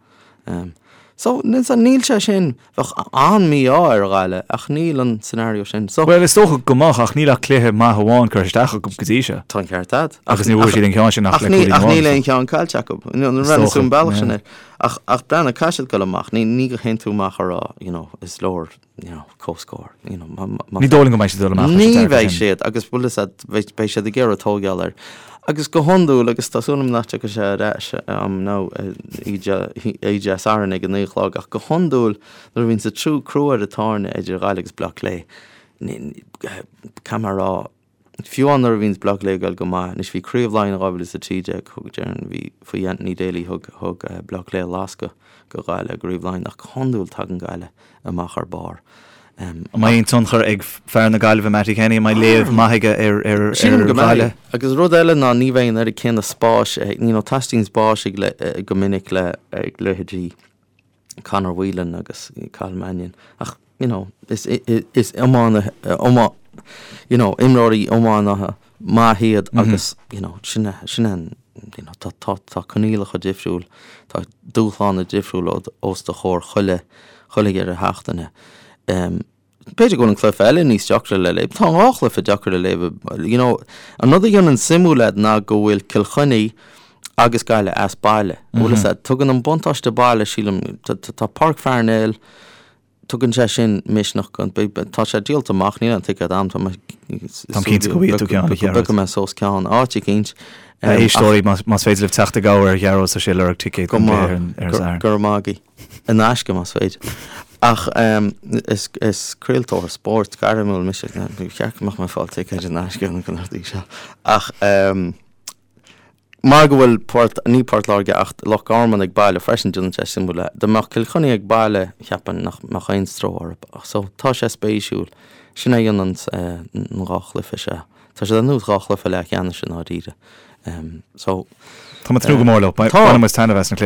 So, níl sé sin, bheadh an-mhí-ádh ar Ghaillimh ach níl an scenario sin. So. Bhuel, is dócha go mbeadh ach níl ach cluiche maith amháin curtha isteach acu go dtí seo. Tá an ceart agat. Agus níor bhuaigh siad an ceann sin ach le cúilín amháin. Ach níl aon cheann caillte acu. Is dócha, an bealach sin air. Ach, ach breathnaigh, caithfidh siad dul amach. Ní, ní go théann tú amach a rá, you know, is leor you know, comhscór. You know, má, má, Ní dóigh liom go mbeidh siad ag dul amach leis an Ní dearcadh bheidh sin. siad agus bhfuil fhios agat, beidh, beidh siad ag iarraidh tógáil air. Agus go hiondúil, agus tá súil agam nach dtiocfaidh sé ar ais am nó Dé Sathairn ag a 9 a chlog, ach go hiondúil nuair a bhíonn sa trú crú ar an tairne idir Ghaillimh agus Bleá Cliath, ní, ní, caithfidh mé a rá, Fiú amháin nuair a bhíonns Bleá Cliath ag goil go maith, anois bhí Craobh Laighean 2013, thug, déarfainn, bhí faoi Anthony Daly, thug, thug Bleá Cliath lascadh go Gaillimh i gCraobh Laighean ach go hiondúil tagann Gaillimh amach ar barr. An mbeidh aon tionchar ag fear na Gaillimhe, Mattie Kenny, an mbeidh léamh maith aige ar, ar, Sílim go mbeidh. Ghaillimh? Agus rud eile ná ní bheidh an oiread céanna spáis, you know, teastaíonn spáis ag le, go minic le, ag leithéidí Conor Whelan agus Cathal Mannion ach you know is is iománaithe iomá you know imreoirí iománaithe maith iad agus you know sin é sin é an you know tá tá tá coinníollacha difriúil tá dúshláin difriúil os do chomhair chuile chuile dheireadh seachtaine. B'fhéidir go bhfuil an cluiche eile níos deacra le léamh. Tá an dhá chluiche deacair le léamh. You know, an rud a dhéanann suimiúil é ná go bhfuil Cill Chainnigh agus Gaillimh as baile. An bhfuil fhios agat? Tugann an buntáiste baile, sílim, tá Páirc Pharnell, tugann sé sin misneach go, tá sé díolta amach, níl aon ticéad agam, tá mé Táim cinnte go bhfaighidh tú ceann, a Ghearóid. Go bpiocfaidh mé suas ceann, áit eicínt. A éisteoirí, más féidir libh teacht i gcabhair ar Ghearóid, tá sé ag lorg ticéad don chluiche ar an Satharn. Go raibh maith agaibh. In aisce, más féidir. Ach is craoltóir spóirt gairmiúil mise, ba cheart go mbeadh mé ag fáil ticéid in aisce ar na rudaí seo. Ach mar go bhfuil Port, ní Port Láirge ach Loch Garman ag baile freisin, déanann sé suimiúil é. Dá mbeadh Cill Chainnigh ag baile, cheapfainn nach mbeadh aon stró orthu. Ach so, tá sé spéisiúil. Sin é a dhéanann an dhá chluiche seo. Tá siad ar nós dhá chluiche leathcheannais i ndáiríre. So. Tá mé ag tnúth go mór leo. Bainfidh muid taitneamh as na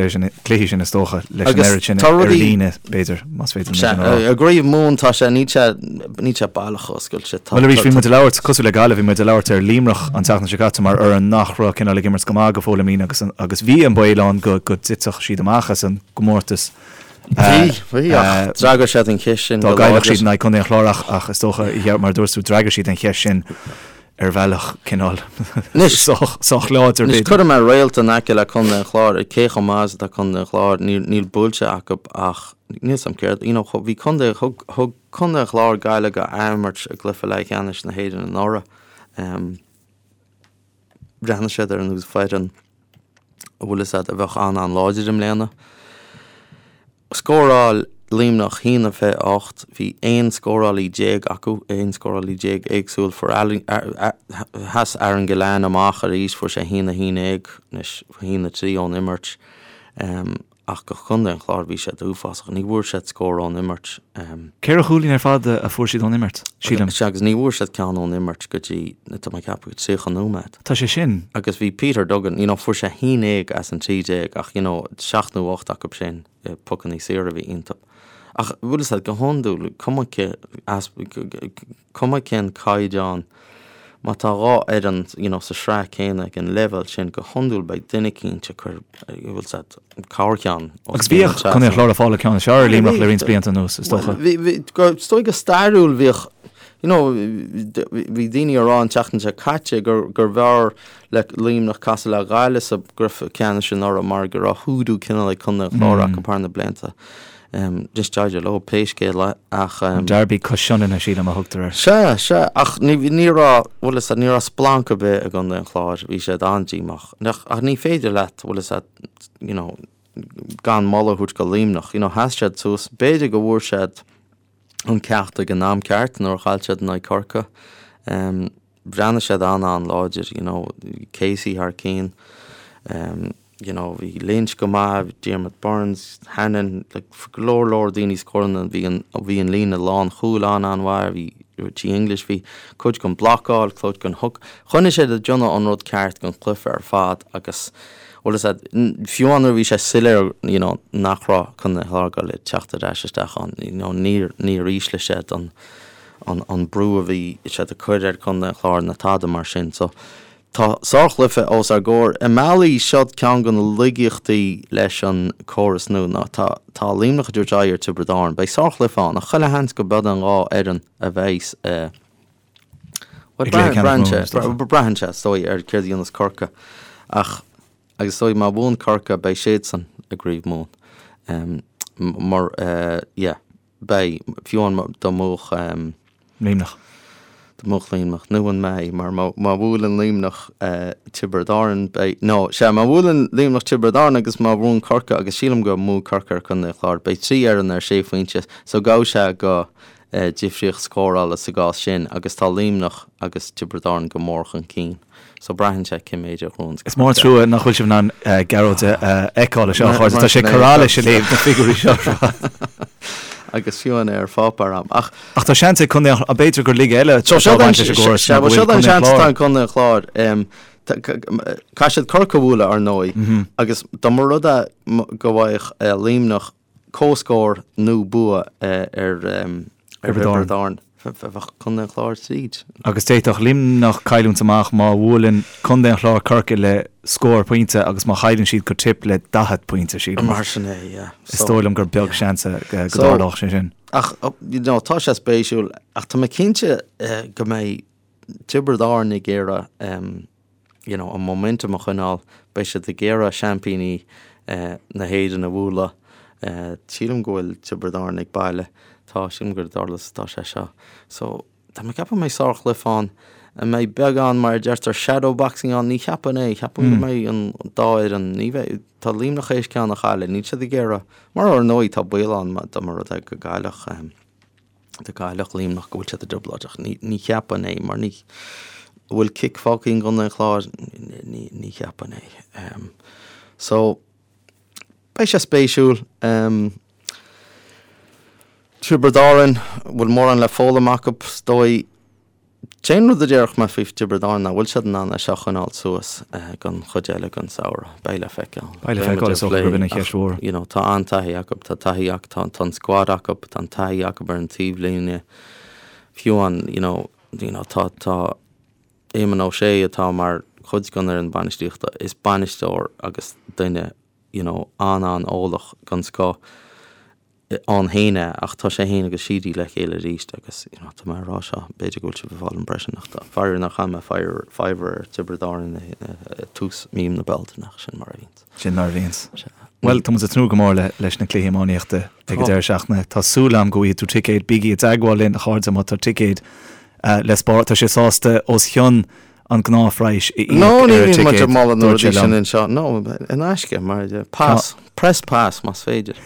cluichí sin is dócha, leis an oiread sin ar líne, b'fhéidir, más féidir liom sin a rá. I gCraobh Mumhan tá sé, níl sé, níl sé baileach oscailte. Bhuel arís, bhí muid ag labhairt, cosúil le Gaillimh, bhí muid ag labhairt ar Luimneach an tseachtain seo caite mar fhoireann nach raibh cineál ag imirt go maith go fóill i mbliana agus, agus bhí an baol ann go, go dtitfeadh siad amach as an gcomórtas. Bhí, bhí, ach d'fhreagair siad an cheist sin go láidir. Dá gcaillfeadh siad in aghaidh Contae an Chláir ach, ach is dócha, mar a dúirt tú, d'fhreagair siad an cheist sin ar bhealach cineál sách, sách láidir Anois, b'fhéidir. cuirfidh mé réalt in aice le Contae an Chláir, cé chomh maith is atá Contae an Chláir, níl, níl buailte acu ach níl 'fhios a'm céard, you know, bhí Contae, thug, thug Contae an Chláir Gaillimh go athimirt i gcluiche leathcheannais na hÉireann anuraidh. Bhreathnaigh siad ar nós foireann a bhfuil fhios a'd a bheadh an-an-láidir i mbliana. Scóráil Luimneach 1-28, bhí 11 scórálaí acu, 11 scórálaí éagsúil. Fuair sheas Aaron Gillane amach arís, fuair sé 1-11, anois 1-3 ón imirt. Ach do Chontae an Chláir bhí siad uafásach. Ní bhfuair siad scór ón imirt. Ceithre chúilín ar fad a fuair siad ón imirt, sílim. Sea, agus ní bhfuair siad ceann ón imirt go dtí, tá mé ag ceapadh, 30 nóiméad. Tá sé sin. Agus bhí Peter Duggan, you know, fuair sé 11 as an 13 ach, you know, seacht nó ocht acu sin, pocannaí saora a bhí iontu. Ach bhfuil fhios a'd, go hiondúil, cuma cé, cuma cén caighdeán. Má tá 2 fhoireann, you know, sa sraith céanna ag an leibhéal sin, go hiondúil beidh duine eicínt ag cur, bhfuil 's a'd, corrcheann os Agus cionn an bhíodh Contae an Chláir ag fáil an ceann is fearr ar Luimneach le roinnt blianta anuas, is dócha. Bhí, bhí, is dóigh go stairiúil bhíodh, you know, bhí daoine ag rá an tseachtain seo caite gur, gurbh fhearr le Luimneach casadh le Gaillimh sa gcluiche ceannais anuraidh mar go raibh hoodoo cineál ag Contae an Chláir acu thar na blianta. Anois d'éirigh leo pé scéal é ach. An Derby cois Sionainne, sílim, a thugtar air. Sea, sea, ach ní, ní raibh, bhfuil 'fhios a'd, ní raibh splanc ar bith i gContae an Chláir, bhí siad an-díomách. Ach, ach ní féidir leat, bhfuil 'fhios a'd, you know, gan moladh a thabhairt go Luimneach, you know, sheas siad suas, b'fhéidir go bhfuair siad an ceacht ag an am ceart nuair a chaill siad in aghaidh Corcaigh. Bhreathnaigh siad an-an-láidir, you know, Casey thar cinn, you know, bhí Lynch go maith, Diarmaid Byrnes, Hannon, like, go leor leor daoine scóranna, bhí an, bhí an líne lánchúil an-an-mhaith, bhí Richie English, bhí cuid den blocáil, cuid den hook, choinnigh siad ag déanamh an rud ceart don chluiche ar fad agus, bhfuil 'fhios a'd, fiú amháin nuair a bhí sé soiléir, you know, nach raibh Contae an Chláir ag goil ag teacht ar ais isteach ann, you know, níor, níor ísligh siad an, an an brú a bhí siad ag cur ar Chontae an Chláir ná tada mar sin. So tá sárchluiche os ár gcomhair. I mbealaí seo ceann de na laigeachtaí leis an córas nua ná tá tá Luimneach ag tabhairt aghaidh ar Tiobraid Árann. Beidh sárchluiche ann ach chuile sheans go b'iad an dhá fhoireann a bheidh i Bhuel braitheann sé braitheann sé is dóigh ar céard a dhéanas Corcaigh ach agus is dóigh má bhuann Corcaigh beidh siadsan i gCraobh Mumhan. Mar yeah. Beidh, fiú amháin dá mbuafadh. Luimneach. Dá mbuafadh Luimneach, nó an mbeidh, mar má bhuaileann Luimneach Tiobraid Árann, beidh, nó, sea, má bhuaileann Luimneach Tiobraid Árann agus má bhuann Corcaigh, agus sílim go mbuafaidh Corcaigh ar Chontae an Chláir, beidh 3 fhoireann ar sé phointe, so gabhfaidh sé go difríocht scórála sa gcás sin, agus tá Luimneach agus Tiobraid Árann go mór chun cinn. So braitheann sé cé méid a ghnóthaíonn Is mór an trua nach bhfuil sibh in ann Gearóid a fheiceáil anseo, a chairde. Tá sé ag cur allais ag léamh na figiúirí seo ar fad. Agus fiú amháin ar pháipéar a'm. Ach. Ach tá seans ag Contae an, b'fhéidir gur laige eile atá ag baint leis an gcóras ná go bhfuil Contae an Chláir. Tá Contae an Chláir. Caithfidh siad Corcaigh a bhualadh ar ndóigh agus dá mba rud é go bhfaigheadh Luimneach comhscór nó bua ar Thiobraid Árann. Bheadh Contae an Chláir tríd. Agus d'fhéadfadh Luimneach cailliúint amach má bhuaileann Contae an Chláir Corcaigh le scór pointe agus má chailleann siad go Tipp le 40 pointe, sílim. Mar sin é, yeah. Is dóigh liom gur beag seans go dtarlódh sé sin. Ach, you know, tá sé spéisiúil, ach tá mé cinnte go mbeidh Tiobraid Árann ag iarraidh you know, an momentum a choinneáil. Beidh siad ag iarraidh seaimpíní na hÉireann a bhualadh. Sílim go bhfuil Tiobraid Árann ag baile. Tá, sílim gur i nDurlas atá sé seo. So, tá mé ag ceapadh go mbeidh sárchluiche ann. An mbeidh beagán, mar a deirtear, shadow boxing ann? Ní cheapfainn é. Cheapfainn go mbeidh an dá fhoireann, ní bheidh, tá Luimneach théis ceann a chailleadh, níl siad ag iarraidh, mar ar ndóigh tá baol ann dá mba rud é go gcaillfeadh. Dá gcaillfeadh Luimneach go bhfuil siad i dtrioblóid ach ní cheapfainn é mar ní bhfuil cic fágtha i gContae an Chláir ní cheapfainn é. So beidh sé spéisiúil. Tiobraid Árann, bhfuil mórán le foghlaim acu is dóigh. Cén rud a déarfadh mé faoi Tiobraid Árann ná bhfuil siad in ann é seo a choinneáil suas don chuid eile den samhradh? Beidh le feiceáil. Beidh le feiceáil, is dócha gurb in an cheist mhór. You know, tá an-taithí acu, tá taithí acu, tá, tá an squad acu, tá an taithí acu ar an taobhlíne. Fiú an, you know, you know, tá, tá Éamon Ó Sé atá mar chuid den fhoireann bainistíochta, is bainisteoir agus duine, you know, an-an-eolach den scoth. ann féin é ach tá sé féin agus Sheedy le chéile arís agus you know tá mé ag rá seo b'fhéidir go bhfuil sibh ag fáil impression ach tá faraor nár chaith mé fiver ar Tiobraid Árann i tús mí na Bealtaine ach sin mar a bhíonns. Sin mar a bhíonns. Bhuel tá muid ag tnúth go mór le leis na cluichí iománaíochta ag an deireadh seachtaine. Tá súil agam go bhfaighidh tú ticéad. Bígí i dteagmháil linn a chairde má tá ticéad le spáráil. Tá sé sásta os cionn an gnáthphraghas a íoc ar an ticéad. No, ní bhíonn muid ag moladh na rudaí sin anseo. No, in aisce, mar pass, press pass más féidir.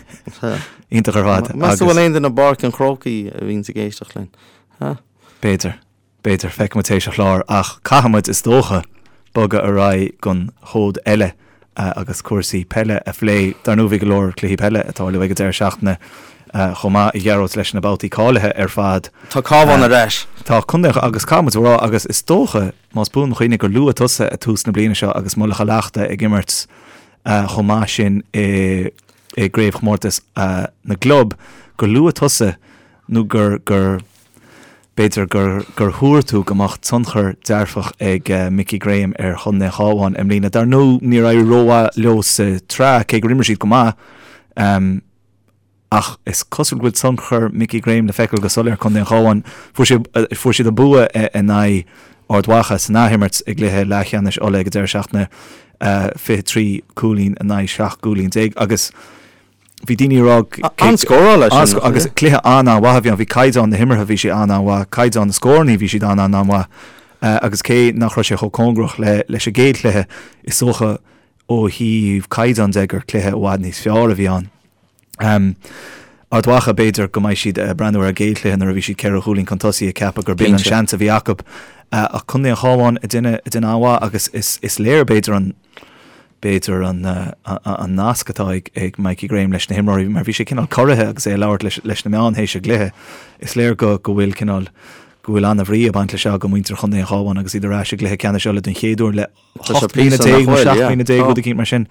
Iontach ar fad. Meas tú bhfuil aon duine i bPáirc an Chrócaigh a bhíonns ag éisteacht linn? Ha? B'fhéidir, b'fhéidir, feicfidh muid théis an chláir, ach caithfidh muid, is dócha, bogadh ar aghaidh don chód eile agus cúrsaí peile a phlé. Dar ndóigh bhí go leor cluichí peile ag tarlú ag an deireadh seachtaine chomh maith, a Ghearóid, leis na babhtaí cáilithe ar fad. Tá Cabhán ar ais. Tá contae agus caithfidh muid a rá agus is dócha, más buan mo chuimhne, gur luaigh tusa ag tús na bliana seo agus Mullach Thamhlachta ag imirt chomh maith sin i gcraobhchomórtas na gclub, gur luaigh tusa nó gur gur. B'fhéidir gur gur thuar tú go mbeadh tionchar dearfach ag Mickey Graham ar Chontae an Chabháin i mbliana. Dar ndóigh, níor éirigh rómhaith leo sa tsraith, cé gur imir siad go maith. Ach is cosúil go bhfuil tionchar Mickey Graham le feiceáil go soiléir ar Chontae an Chabháin. Fuair siad fuair siad an bua in aghaidh Ard Mhacha san athimirt i gcluiche leathcheannais Uladh ag an deireadh seachtaine, 23 cúilín in aghaidh 17 gcúilín agus bhí daoine ag rá An-scóráil é sin. Agus cluiche an-an-mhaith a bhí ann. Bhí caighdeán na himeartha, bhí sé an-an-mhaith, caighdeán na scórannaí, bhí siad an-an-mhaith. Agus cé nach raibh sé chomh cóngarach le leis an gcéad chluiche, is dócha ó thaobh caighdeán de gur cluiche i bhfad níos fearr a bhí ann. Ard Mhacha, b'fhéidir go mbeidh siad ag breathnú ar an gcéad chluiche nuair a bhí siad ceithre chúilín chun tosaigh ag ceapadh gur b'in an seans a bhí acu. Ach Contae an Chabháin ag déanamh ag déanamh an-mhaith agus is is léir b'fhéidir an b'fhéidir an an nasc atá ag ag Mikey Graham leis na himreoirí mar bhí sé cineál corraithe agus é ag labhairt leis leis na meáin théis an gcluiche. Is léir go go bhfuil cineál go bhfuil an-bhrí ag baint leis seo do mhuintir Chontae an Chabháin agus iad ar ais i gcluiche ceannais Uladh den chéad uair le 18 bliana nó 17 bliana, rud eicínt mar sin.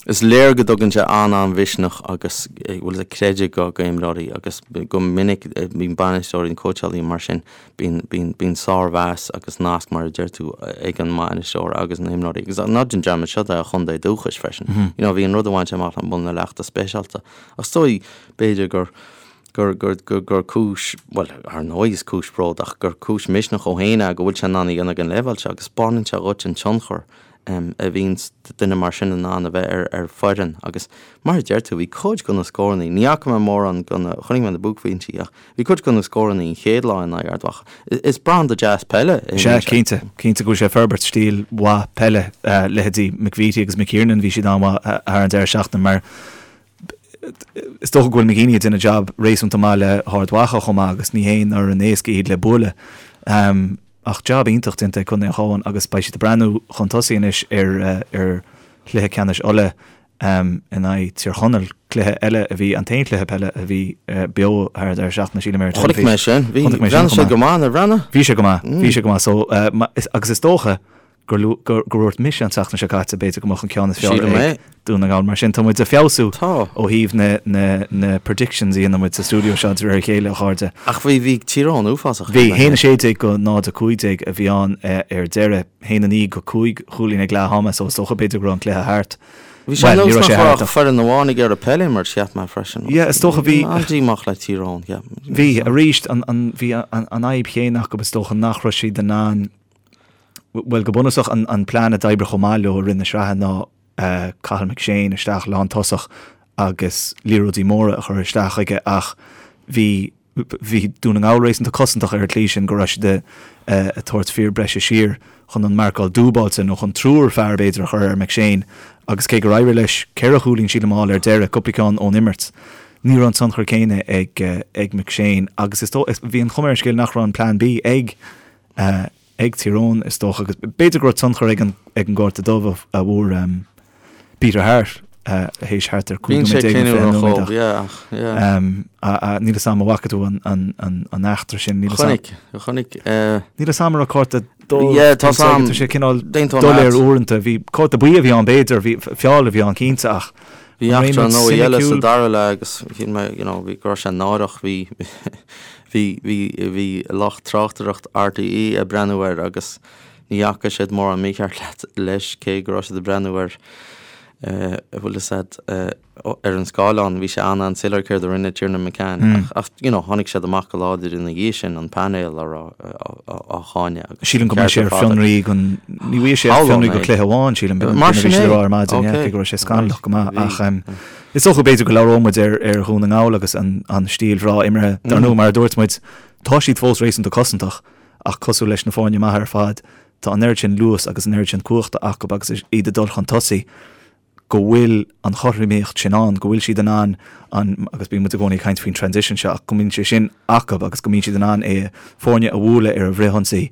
Is léir go dtugann sé an-an-mhisneach agus bhfuil a creideamh go go imreoirí agus go minic bíonn bainisteoirí nó cóitseálaí mar sin, bíonn bíonn bíonn sármheas agus nasc mar a deir tú ag an mbainisteoir agus na himreoirí agus ná déan dearmad seo é a chontae dúchais freisin. You know bhí an rud a bhain sé amach le Muileann na Leachta speisialta. Ach is dóigh b'fhéidir gur gur, gur, gur, gur cúis, bhuel, ar ndóigh is cúis bróid ach gur cúis misneach dhó féin é go bhfuil sé in ann a dhéanamh ag an leibhéal seo agus spáineann sé dhuit an tionchar a bhíonns duine mar sin in ann a bheith ar, ar foireann agus mar a deir tú, bhí cuid de na scórannaí, ní fhaca mé mórán de na, chonaic mé na buaicphointí ach bhí cuid de na scórannaí an chéad lá in aghaidh Ard Mhacha. Is branda deas peile é. Sea, cinnte, cinnte go bhfuil sé ag forbairt stíl mhaith peile, leithéidí McVeety agus McKiernan, bhí siad an-mhaith thar an deireadh seachtaine mar Is dócha go bhfuil McGeeney ag déanamh jab réasúnta maith le hArd Mhacha chomh maith agus ní haon fhoireann éasca iad le bualadh. Ach jab iontach déanta ag Contae an Chabháin agus beidh siad ag breathnú chun tosaigh anois ar ar chluiche ceannais Uladh in aghaidh Tír Chonaill, cluiche eile a bhí, an t-aon chluiche peile a bhí beo thar an deireadh seachtaine sílim ar an teilifís. Chonaic mé sin. Bhí, bhreathnaigh sé go maith, nár bhreathnaigh? Bhí sé go maith, bhí sé go maith. So, agus is dócha gur gur dhúirt mise an tseachtain seo caite, b'fhéidir go mbeadh an ceann is fearr ag Dún na nGall. Mar sin, tá muid ag feabhsú ó thaobh na na na predictions a dhéanann muid sa stiúideo seo de réir a chéile, a chairde. Ach bhí bhí Tír Eoghain uafásach. Bhí, 1-16 go 0-15 a bhí ann ar deireadh, 1-9 go 5 chúilín ag leath ama, so is dócha b'fhéidir go raibh an cluiche thart. Bhí sé ar nós nach raibh ach foireann amháin ag iarraidh peil a imirt, cheap mé freisin. Yeah, is dócha bhí. An-díomách le Tír Eoghain, cheap. Bhí, arís, an an bhí an an fhadhb chéanna acu is dócha nach raibh siad in ann Bhuel, go bunúsach, an plean a d'oibrigh chomh maith leo i rith na sraithe ná Cathal McShane isteach lántosach agus liathróidí móra a chur isteach chuige ach bhí bhí Dún na nGall réasúnta cosantach ar an tslí sin go raibh siad ag tabhairt fir breise siar chun an marcáil dúbáilte nó chun triúr fear b'fhéidir a chur ar McShane agus cé gur éirigh leis ceithre chúilín sílim a fháil ar deireadh, cúpla ceann ón imirt, ní raibh an tionchar céanna ag ag McShane agus is dóigh bhí an chuma ar an scéal nach raibh an plean B ag ag Tír Eoghain, is dócha, agus b'fhéidir go raibh tionchar ag an ag an gcárta dubh a bhfuair Peter Harte théis thart ar 15 nóiméad nó 20 nóiméad ach níl 'fhios a'm an bhfaca tú an an an an eachtra sin, níl 'fhios a'm. Chonaic, chonaic. Níl 'fhios a'm an raibh cárta dubh Yeah, tá 'fhios a'm. Tá sé cineál doiléir uaireanta, bhí cárta buí a bhí ann b'fhéidir, bhí feall a bhí ann cinnte ach Bhí eachtra ar ndóigh eile sa dara leath agus shíl mé, you know, bhí go raibh sé náireach, bhí bhí bhí bhí lucht tráchtaireacht RTÉ ag breathnú air agus ní fhaca siad mórán mícheart leat leis cé go raibh siad ag breathnú air eh bhfuil fhios a'd eh ar an scáileán bhí sé an-an-soiléir céard a rinne Tiernan McCann ach ach you know tháinig siad amach go láidir ina dhiaidh sin an painéal á rá á cháineadh agus Sílim go mbeidh sé ar fionraí don ní bhfuil sé ar fionraí go cluiche amháin sílim Mar sin é ar maidin cé go raibh sé scannalach go maith ach is dócha b'fhéidir go labhróidh muid ar ar Dhún na nGall agus an an stíl bhreá imeartha dar ndóigh mar a dúirt muid tá siad fós réasúnta cosantach ach cosúil leis na foirne maithe ar fad tá an oiread sin luas agus an oiread sin cumhachta acu agus iad ag dul chun tosaigh go bhfuil an chothromaíocht sin ann, go bhfuil siad in ann an, agus bíonn muid i gcónaí ag caint faoin transition seo, ach go mbíonn sé sin acu agus go mbíonn siad in ann é, foirne a bhualadh ar an bhfrithionsaí.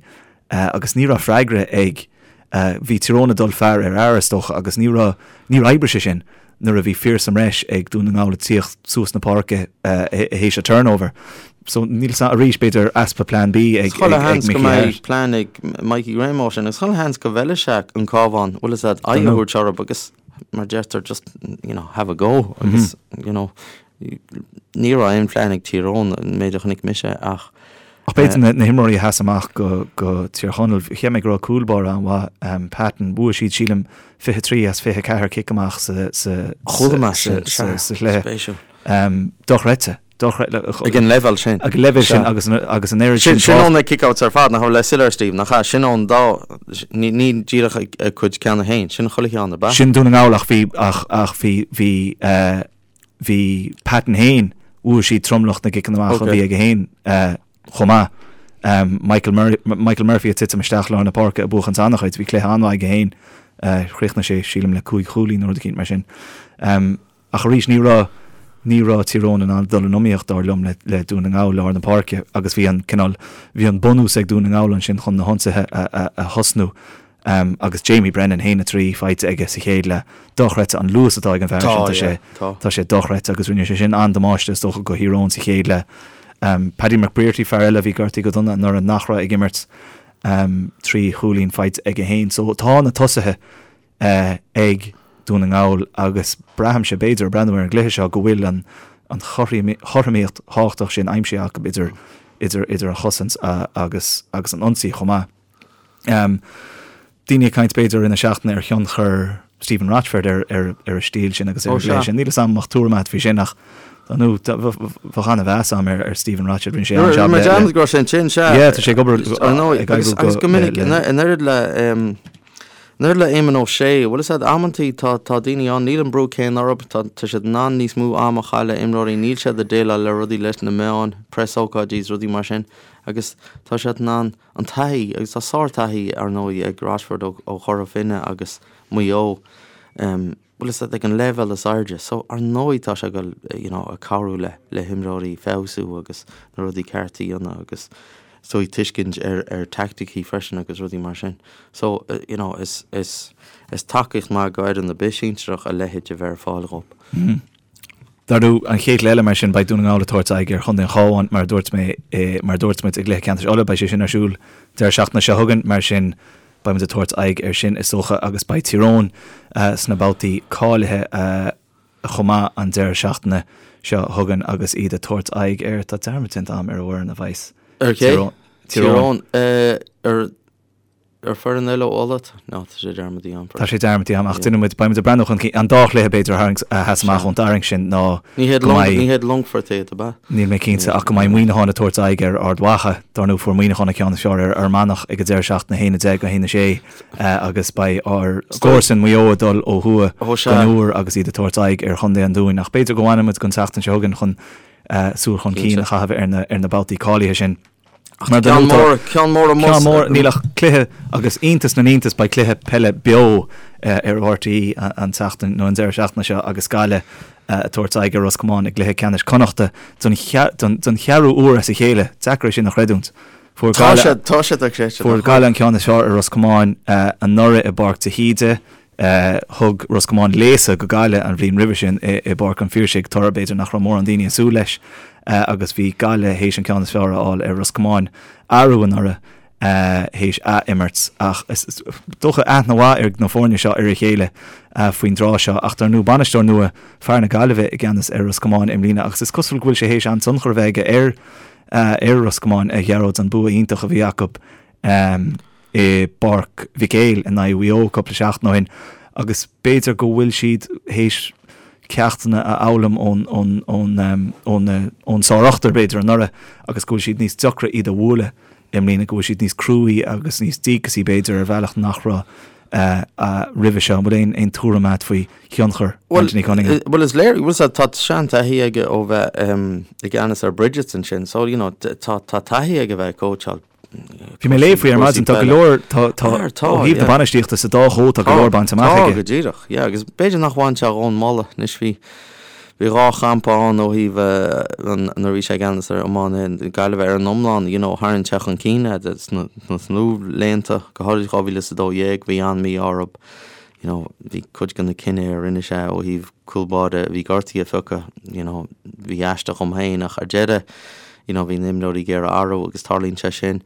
Agus ní raibh freagra ag, bhí Tír Eoghain ag dul fear ar fhear is dócha agus ní raibh, níor oibrigh sé sin nuair a bhí fir sa mbreis ag Dún na nGall ag tíocht suas na páirce théis an turnover. So níl 's arís b'fhéidir easpa plean B ag Chuile sheans go mbeidh plean ag Mikey Graham ó sin agus chuile sheans go bhfeilfidh sé an Cabhán bhfuil fhios a'd aghaidh a thabhairt orthu agus mar deirtear just you know have a go agus you know ní raibh aon phlean ag Tír Eoghain an méid a chonaic mise ach. Ach b'fhéidir na himreoirí a sheas amach go go Tír Chonaill, cheap mé go raibh cúl báire an-mhaith, Patton, bhuaigh siad sílim 23 as 24 cic amach sa sa Chuala mé sin, sa sa chluiche. Spéisiúil. Dochreidte. Dochreidte. Ag an leibhéal sin. Ag an leibhéal sin agus agus an oiread sin. Sin ó na kick-outs ar fad, nach raibh le soiléir Steve, nach ea? Sin ón dá, ní ní díreach a cuid ceann féin, sin chuile cheann, ab ea? Sin Dún na nGall ach bhí ach ach bhí bhí Bhí Patton féin, bhuaigh siad tromlach na gciceanna amach a bhí aige féin chomh maith. Michael Michael Murphy ag titim isteach lár na páirce ag buachan an-chuid, bhí cluiche an-mhaith aige féin. Chríochnaigh sé, sílim, le 5 chúilín nó rud eicínt mar sin. Ach arís, ní raibh ní raibh Tír Eoghain in ann dul in iomaíocht, dar liom, le Dún na nGall lár na páirce agus bhí an cineál, bhí an bunús ag Dún na nGall ansin chun na hionsaithe a thosnú. Agus Jamie Brennan, 1-3 faighte aige sa chéad leath. Dochreidte an luas atá ag an bhfear sin, tá sé, tá sé dochreidte agus rinne sé sin an-damáiste is dócha go Thír Eoghain sa chéad leath. Paddy McBrearty, fear eile a bhí gortaithe go dona anuraidh nach raibh ag imirt, 3 chúilín faighte aige féin. So tá na tosaithe ag Dún na nGall agus braithimse, b'fhéidir, ag breathnú ar an gcluiche seo go bhfuil an an chothromaíocht thábhachtach sin aimsithe acu idir idir idir an chosaint agus agus an ionsaí chomh maith. Daoine ag caint b'fhéidir i rith na seachtaine ar thionchar Stephen Rochford ar ar ar a stíl sin agus ar an gcluiche sin. Níl fhios a'm an mbeadh tuairim agat faoi sin ach nó bheadh an-mheas a'm ar ar Stephen Rochford. Rinne sé an-jab le. Rinne go raibh sé ansin, sea. Yeah, tá sé ag obair ag oibriú go. Agus go minic in oiread le in oiread le Éamon Ó Sé, bhfuil fhios a'd, amantaí tá tá daoine ann, níl an brú céanna orthu, tá tá siad in ann níos mó ama a chaitheamh le imreoirí, níl siad ag déileáil le rudaí leis na meáin, preasócáidí is rudaí mar sin agus tá siad in ann an taithí, agus tá sár-taithí, ar ndóigh, ag Rochford ó Chora Finne agus Maigh Eo, bhfuil fhios a'd, ag an leibhéal is airde. So, ar ndóigh, tá sé ag dul, you know, ag cabhrú le, le himreoirí feabhsú agus na rudaí cearta a dhéanamh agus is dóigh tuiscint ar, ar teaicticí freisin agus rudaí mar sin. So, you know, is, is, is tacaíocht maith go fhoireann ar bith sinsearach a leithéid a bheith ar fáil dhóibh. Dar ndóigh, an chéad chluiche eile mar sin, beidh Dún na nGall ag tabhairt aghaidh ar Chontae an Chabháin, mar a dúirt mé, mar a dúirt muid i gcluiche ceannais Uladh, beidh sé sin ar siúl deireadh seachtaine seo chugainn, mar sin beidh muid ag tabhairt aghaidh air sin is dócha agus beidh Tír Eoghain sna babhtaí cáilithe chomh maith an deireadh seachtaine seo chugainn agus iad ag tabhairt aghaidh ar, tá dearmad déanta agam ar an bhfoireann a bheas Ar cé? Tír Eoghain. Ar Ar foireann eile ó Uladh? No, tá sé dearmadta agam. Tá sé dearmadta agam, ach déanfaidh muid, beidh muid ag breathnú chun cinn. An dá chluiche, b'fhéidir, a tharraingt, a sheas amach ón dtarraingt sin ná Ní hiad go mbeidh. Ní hiad Longfort iad, ab ea? Níl mé cinnte, ach go mbeidh Muineachán ag tabhairt aghaidh ar Ard Mhacha. Dar ndóigh, fuair Muineachán an ceann is fearr ar Fhear Manach ag an deireadh seachtaine, 1-10 go 1-6, agus beidh ár gcomharsain Maigh Eo ag dul ó thuaidh don Iúr agus iad ag tabhairt aghaidh ar Chontae an Dúin. Ach b'fhéidir go bhfanfaidh muid don tseachtain seo chugainn chun súil chun cinn a chaitheamh ar na babhtaí cáilithe sin. Ach tá ceann mór, ceann mór amuigh. Ceann mór, níl ach cluiche agus iontas na n-iontas beidh cluiche peile beo ar RTÉ an tseachtain nó an deireadh seachtaine seo agus Gaillimh ag tabhairt aghaidh ar Ros Comáin i gcluiche ceannais Connachta don cheathrú uair as a chéile. Deacair é sin a chreidiúint. Fuair Gaillimh, tá sé dochreidte. Fuair Gaillimh an ceann is fearr ar Ros Comáin anuraidh i bPáirc de hÍde. Thug Ros Comáin léasadh go Gaillimh an bhliain roimhe sin i bPáirc an Phiarsaigh, toradh b'fhéidir nach raibh mórán daoine ag súil leis, agus bhí Gaillimh théis an ceann is fearr a fháil ar Ros Comáin arú anuraidh théis ath-imirt. Ach is dócha aithne mhaith ag na foirne seo ar a chéile faoin dtráth seo. Ach dar ndóigh bainisteoir nua, fear na Gaillimhe i gceannas ar Ros Comáin i mbliana agus is cosúil go bhfuil sé théis an-tionchar a bheith aige ar ar Ros Comáin, a Ghearóid, an bua iontach a bhí acu. i bPáirc Mhic Éil in aghaidh Mhaigh Eo cúpla seachtain ó shin agus b'fhéidir go bhfuil siad théis ceachtanna a fhoghlaim ón ón ón ón ón sárochtar b'fhéidir anuraidh agus go bhfuil siad níos deacra iad a bhualadh i mbliana, go bhfuil siad níos cruaí agus níos díocasaí b'fhéidir ar bhealach nach raibh roimhe seo. An bhfuil aon aon tuairim agat faoi thionchar Anthony Cunningham? Bhuel is léir, bhuel tá seantaithí aige ó bheith i gceannas ar Brigid's ansin so you know tá tá taithí aige bheith ag cóitseáil Bhí mé ag léamh faoi ar maidin, tá go leor, tá, tá, ó thaobh na bainistíochta sa dá chód, tá go leor bainte amach aige. Tá, go díreach, yeah, agus b'fhéidir nach bhain sé dhó an moladh, anois bhí, bhí dhá champa ann ó thaobh nuair a bhí sé i gceannas ar iománaithe na Gaillimhe ar an iomlán, you know, tharraing sé chun cinn iad sna, sna luathbhlianta, go háirid 2012, bhí an-mhí-ádh orthu, you know, bhí cuid de na cinntí a rinne sé ó thaobh cúl báire a bhí gortaithe a phiocadh, you know, bhí aisteach dhom féin ach ar deireadh, you know, bhí na himreoirí ag iarraidh athrú agus tarlaíonn sé sin.